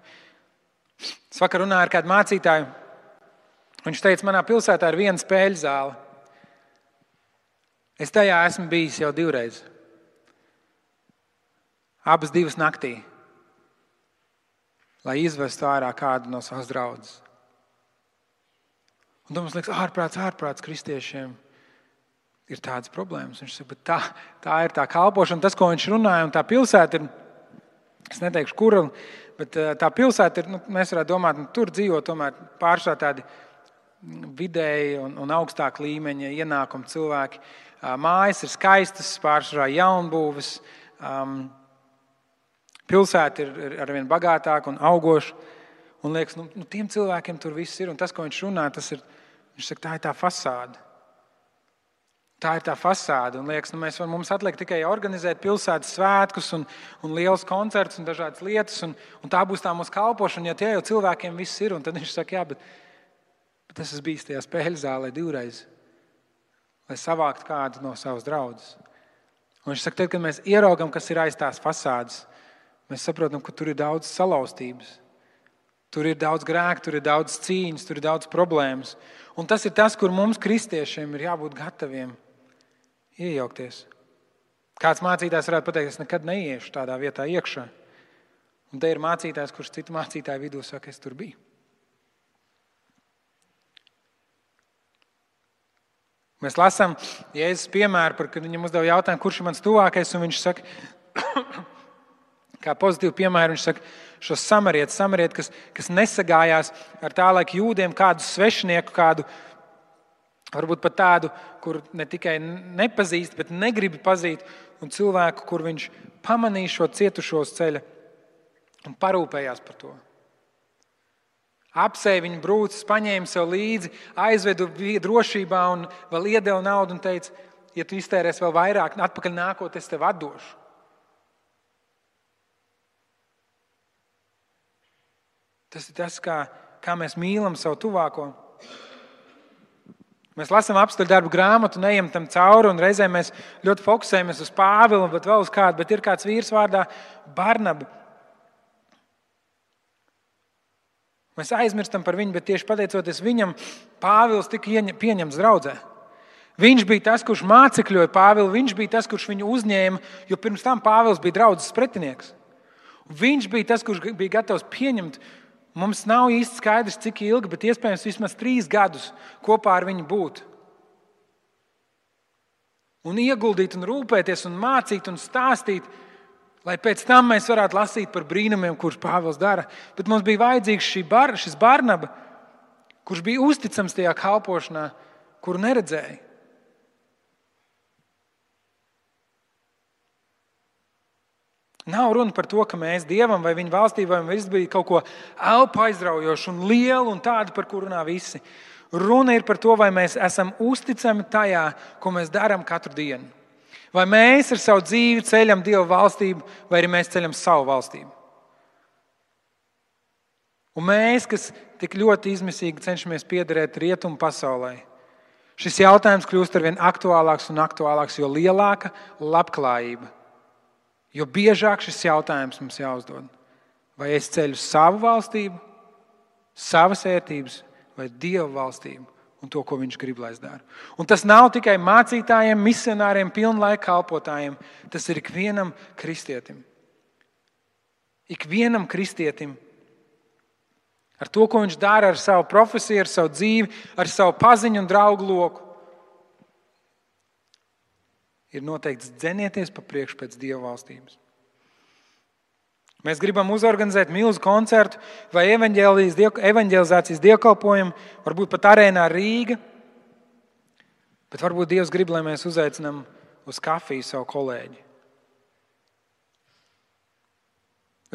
Es vakar runāju ar kādu mācītāju. Viņš teica, manā pilsētā ir viena spēļu zāle. Es tajā esmu bijis jau 2 reizes. Abas 2 naktī. Lai izvestu ārā kādu no savas draudzes. Un tad mums liekas, ārprāts kristiešiem ir tādas problēmas. Viņš saka, bet tā ir tā kalpošana, tas, ko viņš runāja, un tā pilsēta ir, es neteikšu, kura, bet tā pilsēta ir, mēs varētu domāt, tur dzīvo tomēr pārsvarā tādi vidēji un augstāk līmeņa ienākumi cilvēki. Mājas ir skaistas, pārsvarā jaunbūves, pilsēta ir arvien bagātāka un augoša. Un liekas, tiem cilvēkiem tur viss ir. Un tas, ko viņš runā, viņš saka, tā ir tā fasāde. Tā ir tā fasāde. Un liekas, mums atliek tikai organizēt pilsētas svētkus un liels koncerts un dažādas lietas. Un tā būs tā mūsu kalpošana, ja tie jau cilvēkiem viss ir. Un tad viņš saka, bet es esmu bijis tajā spēļu zālē 2 reizes, lai savāktu kādu no savas draudzes. Un viņš saka, tad, kad mēs ieraugam, kas ir aiz tās fasādes, mēs saprotam, ka tur ir daudz salauztības. Tur ir daudz grēku, tur ir daudz cīņas, tur ir daudz problēmas. Un tas ir tas, kur mums kristiešiem ir jābūt gataviem iejaukties. Kāds mācītājs varētu pateikt, es nekad neiešu tādā vietā iekšā. Un te ir mācītājs, kurš citu mācītāju vidū saka, es tur biju. Mēs lasām Jēzus piemēru, kad viņam uzdeva jautājumu, kurš ir mans tuvākais, un viņš saka, kā pozitīvu piemēru, viņš saka, šos samarieti, kas nesagājās ar tā laika jūdiem kādu svešinieku, kādu, varbūt pat tādu, kur ne tikai nepazīst, bet negribi pazīt, un cilvēku, kur viņš pamanīja šo cietušo uz ceļa un parūpējās par to. Apsēja viņu brūces, paņēma sev līdzi, aizvedu drošībā un vēl iedeva naudu un teica, ja tu iztērēsi vēl vairāk, atpakaļ nākot, es tev atdošu. Tas ir tas, kā mēs mīlam savu tuvāko. Mēs lasām apstuļu darbu grāmatu, neejam tam cauri, un reizēm mēs ļoti fokusējamies uz Pāvilu, bet vēl uz kādu, bet ir kāds vīrs vārdā Barnaba. Mēs aizmirstam par viņu, bet tieši pateicoties viņam, Pāvils tika pieņemts draudzē. Viņš bija tas, kurš mācekļoja Pāvilu, viņš bija tas, kurš viņu uzņēma, jo pirms tam Pāvils bija draudzes pretinieks. Viņš bija tas, kurš bija gatavs pieņemt. Mums nav īsti skaidrs, cik ilgi, bet iespējams vismaz 3 gadus kopā ar viņu būt. Un ieguldīt, un rūpēties, un mācīt, un stāstīt, lai pēc tam mēs varētu lasīt par brīnumiem, kurus Pāvils dara. Bet mums bija vajadzīgs šis Barnaba, kurš bija uzticams tajā kalpošanā, kuru neredzēja. Nav runa par to, ka mēs Dievam vai viņa valstībai viss bija kaut ko elpu aizraujošu un lielu un tādu, par kuru runā visi. Runa ir par to, vai mēs esam uzticami tajā, ko mēs darām katru dienu. Vai mēs ar savu dzīvi ceļam Dieva valstību, vai arī mēs ceļam savu valstību. Un mēs, kas tik ļoti izmisīgi cenšamies piederēt rietumu pasaulē, šis jautājums kļūst arvien aktuālāks un aktuālāks, jo lielāka labklājība. Jo biežāk šis jautājums mums jāuzdod. Vai es ceļu savu valstību, savas vērtības vai Dieva valstību un to, ko viņš grib, lai es daru. Un tas nav tikai mācītājiem, misionāriem, pilnlaika kalpotājiem. Tas ir ikvienam kristietim. Ikvienam kristietim ar to, ko viņš dara ar savu profesiju, ar savu dzīvi, ar savu paziņu un draugu loku. Ir noteikts dzenieties pa priekšu pēc Dieva valstības. Mēs gribam uzorganizēt milzu koncertu vai evaņģelizācijas dievkalpojumu, varbūt pat arēnā Rīga, bet varbūt Dievs grib, lai mēs uzaicinām uz kafiju savu kolēģi.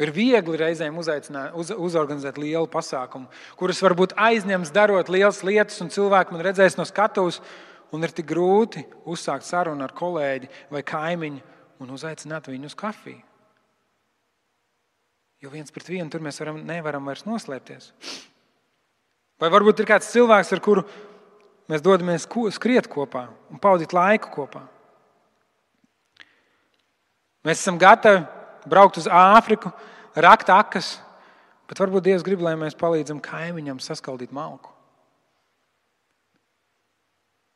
Ir viegli reizēm uzorganizēt lielu pasākumu, kurus varbūt aizņems darot lielas lietas un cilvēki man redzēs no skatuves. Un ir tik grūti uzsākt sarunu ar kolēģi vai kaimiņu un uzaicināt viņu uz kafiju. Jo 1 pret 1 tur mēs nevaram vairs noslēpties. Vai varbūt ir kāds cilvēks, ar kuru mēs dodamies skriet kopā un pavadīt laiku kopā. Mēs esam gatavi braukt uz Āfriku, rakt akas, bet varbūt Dievs grib, lai mēs palīdzam kaimiņam saskaldīt malku.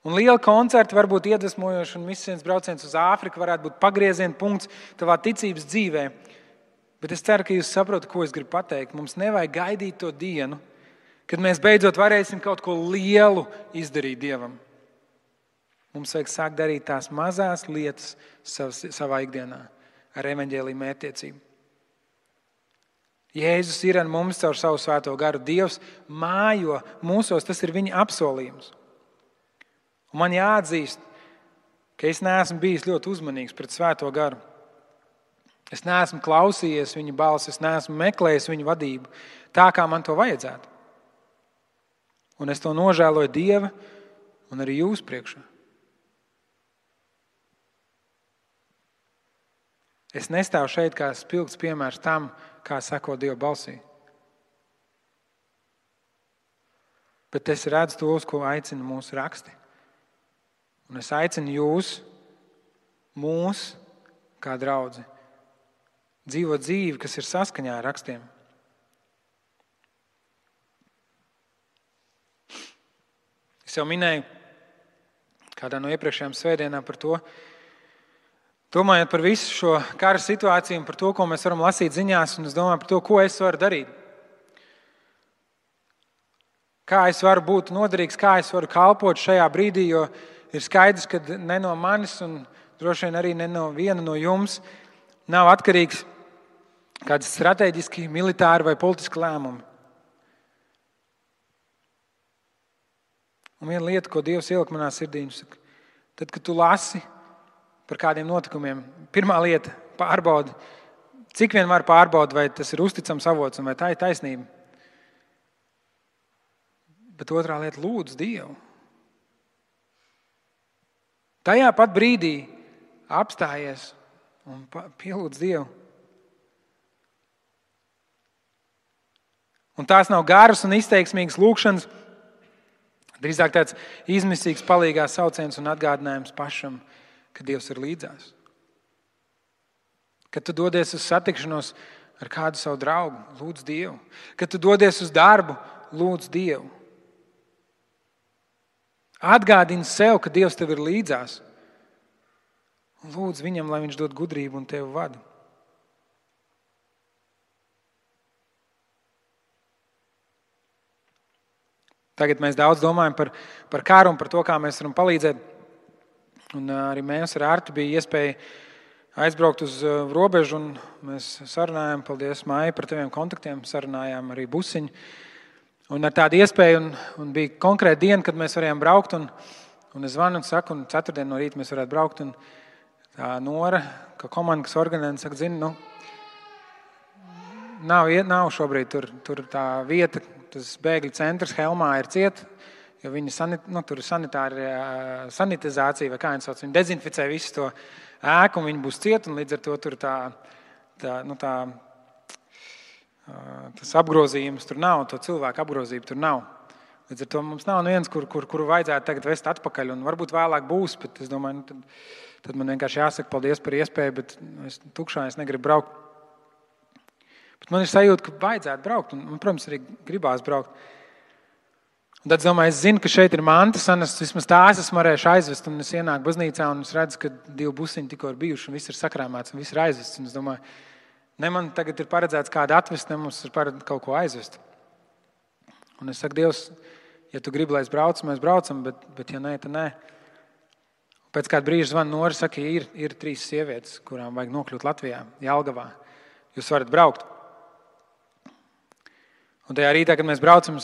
Un liela koncerta var būt iedvesmojoša un misijas brauciens uz Āfriku varētu būt pagrieziena punkts tavā ticības dzīvē. Bet es ceru, ka jūs saprotat, ko es gribu pateikt. Mums nevajag gaidīt to dienu, kad mēs beidzot varēsim kaut ko lielu izdarīt Dievam. Mums vajag sākt darīt tās mazās lietas savā ikdienā ar evaņģēliju mērķtiecību. Jēzus ir ar mums caur savu svēto garu. Dievs mājo mūsos, tas ir viņa apsolījums. Un man jāatzīst, ka es neesmu bijis ļoti uzmanīgs pret svēto garu. Es neesmu klausījies viņa balsi, es neesmu meklējis viņa vadību tā, kā man to vajadzētu. Un es to nožēloju Dieva un arī jūs priekšā. Es nestāvu šeit kā spilgts piemērs tam, kā seko Dieva balsī. Bet es redzu tos, ko aicina mūsu raksti. Un es aicinu jūs, mūs, kā draudzi, dzīvot dzīvi, kas ir saskaņā ar rakstiem. Es jau minēju kādā no iepriekšējām svētdienām par to, domājot par visu šo kara situāciju un par to, ko mēs varam lasīt ziņās, un es domāju par to, ko es varu darīt. Kā es varu būt noderīgs, kā es varu kalpot šajā brīdī, jo ir skaidrs, ka ne no manis un droši vien arī ne no viena no jums nav atkarīgs kāds strateģiski, militāri vai politiski lēmumi. Un viena lieta, ko Dievs ielika manā sirdī, viņš saka, tad, kad tu lasi par kādiem notikumiem, pirmā lieta, pārbaudi, Cik vien var pārbaudīt, vai tas ir uzticams avots un vai tā ir taisnība. Bet otrā lieta, lūdz Dievu. Tajā pat brīdī apstājies un pielūdz Dievu. Un tās nav garas un izteiksmīgas lūkšanas, drīzāk tāds izmisīgs palīgās sauciens un atgādinājums pašam, ka Dievs ir līdzās. Kad tu dodies uz satikšanos ar kādu savu draugu, lūdz Dievu. Kad tu dodies uz darbu, lūdz Dievu. Atgādini sev, ka Dievs tev ir līdzās. Un lūdz viņam, lai viņš dod gudrību un tevi vada. Tagad mēs daudz domājam par karu un par to, kā mēs varam palīdzēt. Un arī mēs ar Artu bija iespēja aizbraukt uz robežu, un mēs sarunājām, paldies Maija par taviem kontaktiem, sarunājām arī Busiņu. Un ar tādu iespēju, un bija konkrēta diena, kad mēs varējām braukt, un es zvanu un saku, un ceturtdien no rīta mēs varētu braukt, un tā Nora, ka komanda, kas organizē, saka, zini, nav šobrīd tur tā vieta, tas bēgļu centrs Helmā ir ciet, jo viņi tur ir sanitizācija, vai kā viņi sauc, viņi dezinficē visu to ēku, un viņi būs ciet, un līdz ar to tur tas apgrozījums tur nav, to cilvēku apgrozību tur nav. Līdz ar to mums nav neviens, kuru vajadzētu tagad vest atpakaļ, un varbūt vēlāk būs, bet es domāju, tad man vienkārši jāsaka paldies par iespēju, bet es tukšā es negribu braukt. Bet man ir sajūta, ka vajadzētu braukt, un, protams, arī gribās braukt. Un tad, domāju, es zinu, ka šeit ir mantas, un vismaz tās esmu varējuši aizvest, un es ienāku baznīcā, un es redzu, ka 2 busiņi tikko ir bijuši, un viss ir sakrāmēts, un viss ir aizvests. Un es domāju, ne man tagad ir paredzēts kādu atvest, ne mums ir paredzēts kaut ko aizvest. Un es saku, Dievs, ja tu gribi, lai es braucu, mēs braucam, bet ja nē, tad nē. Pēc kāda brīža zvana Nora, saka, ir 3 sievietes, kurām vajag nokļūt Latvijā, Jelgavā. Jūs varat braukt. Un tajā rītā, kad mēs braucam,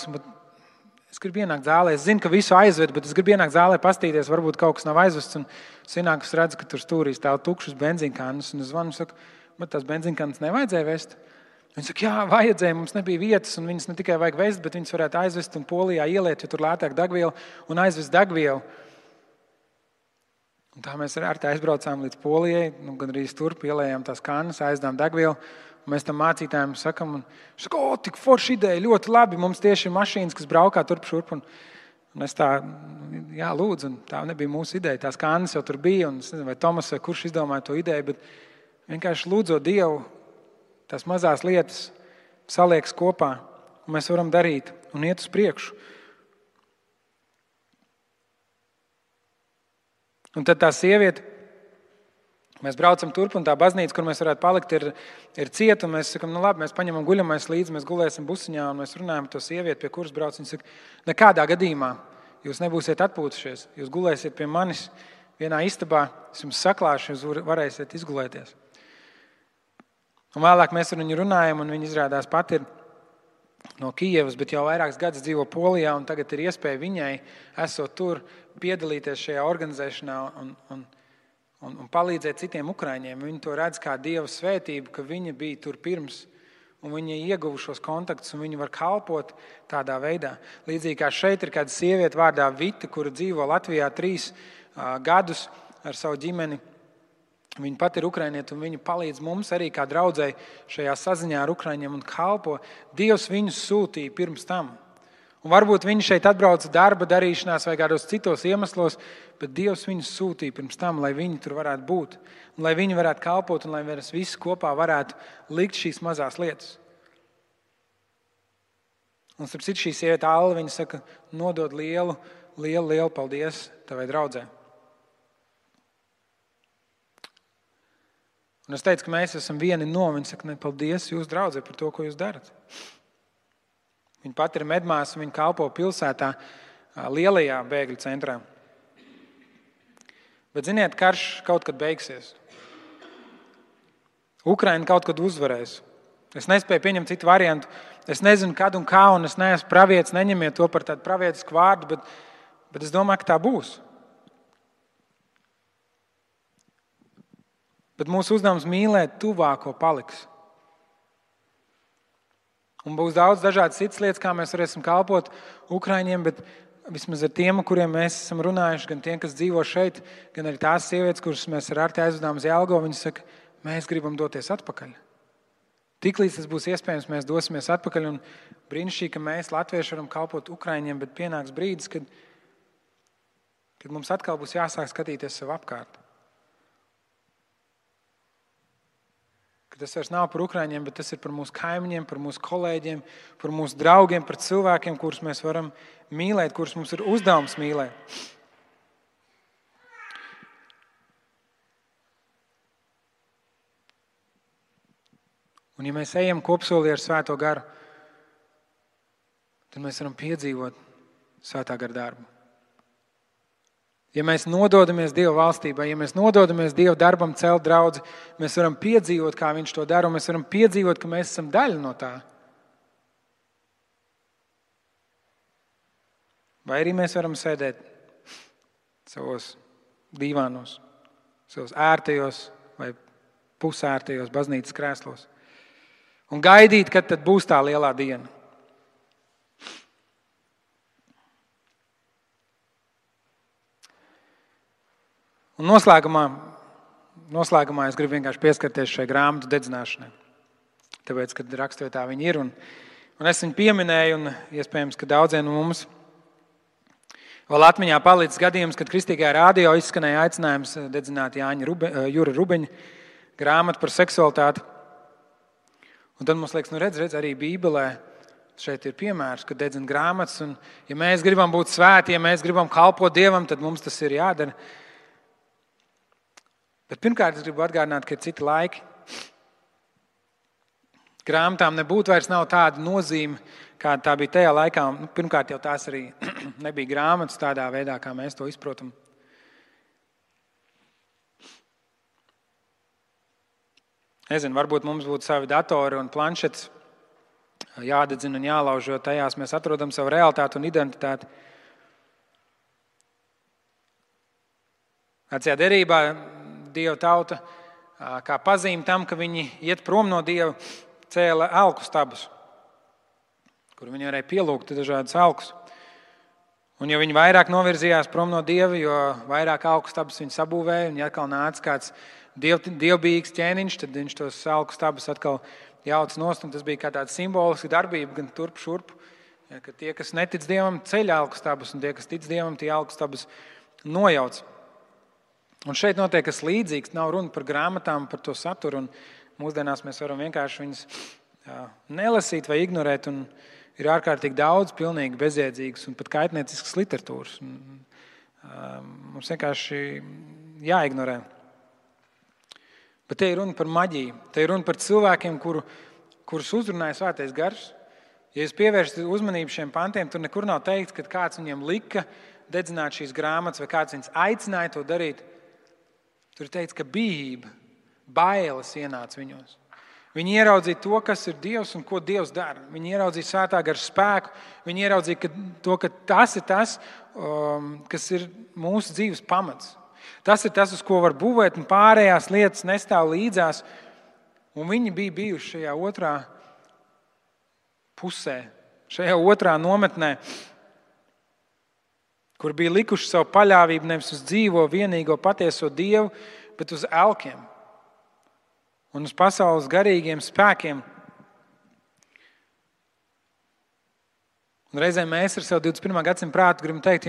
es gribu ienākt zālē. Es zinu, ka visu aizved, bet es gribu ienākt zālē, pastīties, varbūt kaut kas nav aizvests. Un es ienāku, es redzu, ka tur stūrī stāv tukšas benzīnkānas. Un es zvanu, saku, man tās benzīnkānas nevajadzēja vest. Viņi saka, jā, vajadzēja, mums nebija vietas, un viņas ne tikai vajag vest, bet viņas varētu aizvest un Polijā ieliet, jo tur lētāk degviela un aizvest degvielu. Un tā mēs ar tā aizbraucām līdz Polijai, gan arī turp ielējām tās kānas, aizdām degvielu. Mēs tam mācītājiem sakam, un viņš saka, tik forša ideja, ļoti labi, mums tieši ir mašīnas, kas braukā turp šurp. Un es tā, jā, lūdzu, un tā nebija mūsu ideja. Tās kānas jau tur bija, un es nezinu, vai Tomas vai kurš izdomāja to ideju, bet vienkārši lūdzot Dievu, tās mazās lietas saliekas kopā, un mēs varam darīt un iet uz priekšu. Un tad tā sieviete, mēs braucam turp, un tā baznīca, kur mēs varētu palikt, ir cieta, un mēs sakam, labi, mēs paņemam guļamais līdzi, mēs gulēsim busiņā, un mēs runājam ar to sievieti, pie kuras brauc. Viņa saka, nekādā gadījumā jūs nebūsiet atpūtušies, jūs gulēsiet pie manis vienā istabā, es jums saklāšu, jūs varēsiet izgulēties. Un vēlāk mēs ar viņu runājam, un viņa izrādās pat ir no Kijevas, bet jau vairākus gadus dzīvo Polijā, un tagad ir iespēja viņai, esot tur, piedalīties šajā organizēšanā un palīdzēt citiem ukraiņiem. Viņi to redz kā Dieva svētību, ka viņa bija tur pirms, un viņi ieguva šos kontaktus, un viņi var kalpot tādā veidā. Līdzīgi kā šeit ir kāda sieviete vārdā Vita, kura dzīvo Latvijā 3 gadus ar savu ģimeni. Viņa pat ir ukrainiete, un viņa palīdz mums arī kā draudzei šajā saziņā ar ukraiņiem un kalpo. Dievs viņus sūtīja pirms tam. Un varbūt viņi šeit atbrauca darba darīšanās vai kādos citos iemeslos, bet Dievs viņus sūtīja pirms tam, lai viņi tur varētu būt, un lai viņi varētu kalpot, un lai mēs visi kopā varētu likt šīs mazās lietas. Un starp citu šī sieviete Alla, viņa saka, nodod lielu paldies tavai draudzē. Un es teicu, ka mēs esam vieni no, viņa saka, ne, paldies jūs draudzē par to, ko jūs darat. Viņa pat ir medmāsa, viņa kalpo pilsētā lielajā bēgļu centrā. Bet ziniet, karš kaut kad beigsies. Ukraina kaut kad uzvarēs. Es nespēju pieņemt citu variantu. Es nezinu, kad un kā, un es neesmu pravietis, neņemiet to par tādu pravietisku vārdu, bet es domāju, ka tā būs. Bet mūsu uzdevums mīlēt tuvāko paliks. Un būs daudz dažādas citas lietas, kā mēs varēsim kalpot Ukraiņiem, bet vismaz ar tiem, kuriem mēs esam runājuši, gan tiem, kas dzīvo šeit, gan arī tās sievietes, kuras mēs ar Arti aizvedām uz Jelgavu, viņas saka, mēs gribam doties atpakaļ. Tiklīdz tas būs iespējams, mēs dosimies atpakaļ, un brīnišķīgi, ka mēs, latvieši, varam kalpot Ukraiņiem, bet pienāks brīdis, kad mums atkal būs jāsāk skatīties sev apkārt. Ka tas vairs nav par Ukraiņiem, bet tas ir par mūsu kaimiņiem, par mūsu kolēģiem, par mūsu draugiem, par cilvēkiem, kurus mēs varam mīlēt, kurus mums ir uzdevums mīlēt. Un ja mēs ejam kopsolī ar Svēto garu, tad mēs varam piedzīvot Svētā gara darbu. Ja mēs nododamies Dieva valstībai, ja mēs nododamies Dieva darbam celt draudzi, mēs varam piedzīvot, kā Viņš to dara, un mēs varam piedzīvot, ka mēs esam daļa no tā. Vai arī mēs varam sēdēt savos dīvānos, savos ērtajos vai pusērtajos baznīcas krēslos un gaidīt, kad tad būs tā lielā diena. Un noslēgumā es gribu vienkārši pieskarties šai grāmatu dedzināšanai. Tāpēc, kad raksturvietā viņi ir, un es viņu pieminēju, un iespējams, ka daudziem no mums vēl atmiņā palicis gadījums, kad Kristīgajā radio izskanēja aicinājums dedzināt Jura Rubeņa grāmatu par seksualitāti. Un tad mums liekas, redz, arī Bībelē šeit ir piemērs, kad dedzina grāmatas, un ja mēs gribam būt svēti, ja mēs gribam kalpot Dievam, tad mums tas ir jādara. Bet pirmkārt, es gribu atgādināt, ka ir citi laiki. Grāmatām nebūtu vairs nav tāda nozīme, kāda tā bija tajā laikā. Pirmkārt, jau tās arī nebija grāmatas tādā veidā, kā mēs to izprotam. Nezinu, varbūt mums būtu savi datori un planšetes jādedzina un jālauž, jo tajās mēs atrodam savu realitāti un identitāti. Vecajā derībā Dieva tauta, kā pazīme tam, ka viņi iet prom no Dieva, cēla elku stabus, kur viņi varēja pielūgt dažādas elkus. Un jo viņi vairāk novirzījās prom no Dieva, jo vairāk elku stabus viņi sabūvēja, un ja atkal nāca kāds dievbijīgs ķēniņš, tad viņš tos elku stabus atkal jauc nost, un tas bija kā tāda simboliska darbība, gan turp šurp, ja, ka tie, kas netic Dievam, ceļ elku stabus, un tie, kas tic Dievam, tie elku stabus nojauc. Un šeit notiek kas līdzīgs, nav runa par grāmatām, par to saturu, un mūsdienās mēs varam vienkārši viņas nelasīt vai ignorēt, un ir ārkārtīgi daudz pilnīgi bezjēdzīgas un pat kaitnieciskas literatūras. Mums vienkārši jāignorē. Bet te ir runa par maģiju, te ir runa par cilvēkiem, kurus uzrunāja Svētais Gars. Ja jūs pievēršat uzmanību šiem pantiem, tur nekur nav teikts, ka kāds viņiem lika dedzināt šīs grāmatas vai kāds viņus aicināja to darīt. Tur ir teikts, ka bijība, bailes ienāca viņos. Viņi ieraudzīja to, kas ir Dievs un ko Dievs dara. Viņi ieraudzīja Svētā gara spēku. Viņi ieraudzīja ka tas ir tas, kas ir mūsu dzīves pamats. Tas ir tas, uz ko var būvēt, un pārējās lietas nestāv līdzās. Un viņi bija bijuši šajā otrā pusē, šajā otrā nometnē, kur bija likuši savu paļāvību nevis uz dzīvo, vienīgo, patieso Dievu, bet uz elkiem un uz pasaules garīgiem spēkiem. Un reizēm mēs ar savu 21. gadsimtu prātu gribam teikt,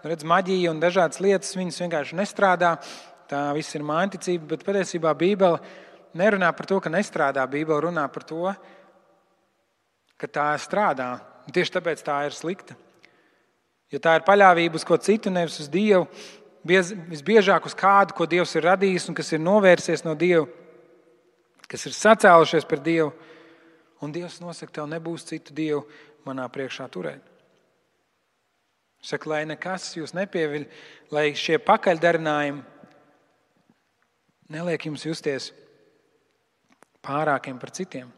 redz, maģija un dažādas lietas, viņas vienkārši nestrādā, tā viss ir mānticība, bet patiesībā Bībele nerunā par to, ka nestrādā. Bībele runā par to, ka tā strādā. Un tieši tāpēc tā ir slikta. Jo tā ir paļāvība uz ko citu, nevis uz Dievu, visbiežāk uz kādu, ko Dievs ir radījis un kas ir novērsies no Dieva, kas ir sacēlušies par Dievu. Un Dievs nosaka, tev nebūs citu Dievu manā priekšā turēt. Saka, lai nekas jūs nepieviļ, lai šie pakaļdarinājumi neliek jums justies pārākiem par citiem.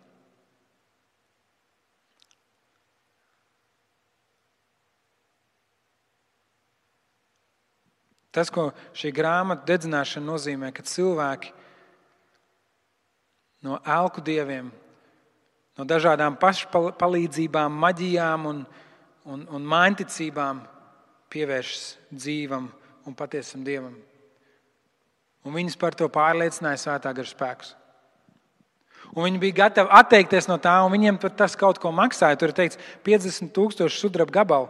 Tas, ko šī grāmata dedzināšana nozīmē, ka cilvēki no elku dieviem, no dažādām pašpalīdzībām, maģijām un mainticībām pievēršas dzīvam un patiesam Dievam. Un viņus par to pārliecināja Svētā gara spēks. Un viņi bija gatavi atteikties no tā, un viņiem tas kaut ko maksāja. Tur ir teikts 50,000 sudraba gabalu.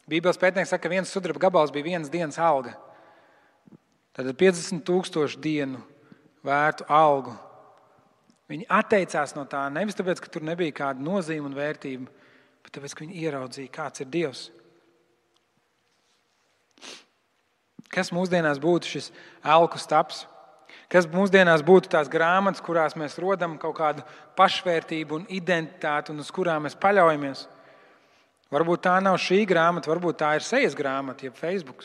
Bībeles pētnieks saka, ka viens sudraba gabals bija vienas dienas alga. Tad 50,000 dienu vērtu algu. Viņi atteicās no tā nevis tāpēc, ka tur nebija kāda nozīme un vērtība, bet tāpēc, ka viņi ieraudzīja, kāds ir Dievs. Kas mūsdienās būtu šis elku staps? Kas mūsdienās būtu tās grāmatas, kurās mēs rodam kaut kādu pašvērtību un identitāti un uz kurām mēs paļaujamies? Varbūt tā nav šī grāmata, varbūt tā ir sejas grāmata, jeb Facebook.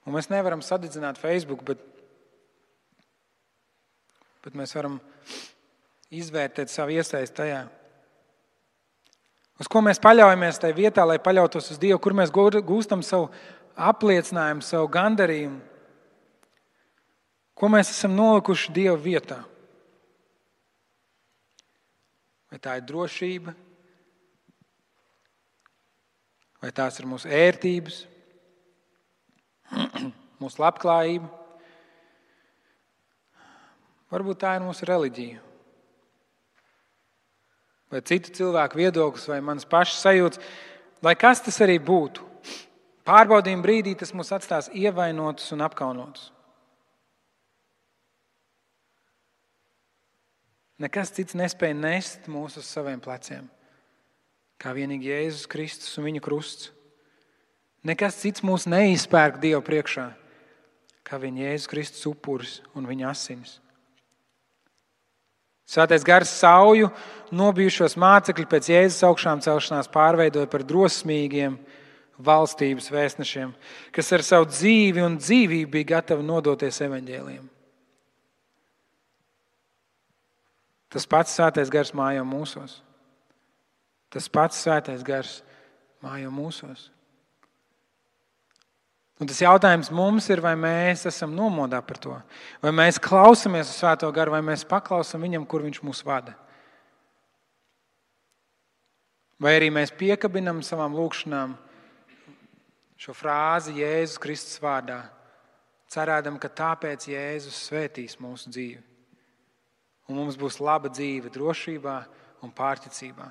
Un mēs nevaram sadedzināt Facebook, bet mēs varam izvērtēt savu iesaisti tajā. Uz ko mēs paļaujamies tajā vietā, lai paļautos uz Dievu, kur mēs gūstam savu apliecinājumu, savu gandarījumu. Ko mēs esam nolikuši Dieva vietā? Vai tā ir drošība? Vai tās ir mūsu ērtības? Mūsu labklājība? Varbūt tā ir mūsu reliģija. Vai citu cilvēku viedoklis, vai manas pašas sajūtas, lai kas tas arī būtu. Pārbaudījuma brīdī tas mūs atstās ievainotus un apkaunotus. Nekas cits nespēja nest mūs uz saviem pleciem, kā vienīgi Jēzus Kristus un viņa krusts. Nekas cits mūs neizpērk Dievu priekšā, kā viņa Jēzus Kristus upuris un viņa asinis. Svētais gars sauju nobijušos mācekļi pēc Jēzus augšām celšanās pārveidoja par drosmīgiem valstības vēstnešiem, kas ar savu dzīvi un dzīvību bija gatavi nodoties evaņģēlijam. Tas pats Svētais gars mājo mūsos. Tas pats Svētais gars mājo mūsos. Un tas jautājums mums ir, vai mēs esam nomodā par to. Vai mēs klausamies uz Svēto garu, vai mēs paklausam viņam, kur viņš mūs vada. Vai arī mēs piekabinam savām lūkšanām šo frāzi Jēzus Kristus vārdā, cerēdam, ka tāpēc Jēzus svētīs mūsu dzīvi. Un mums būs laba dzīve drošībā un pārticībā.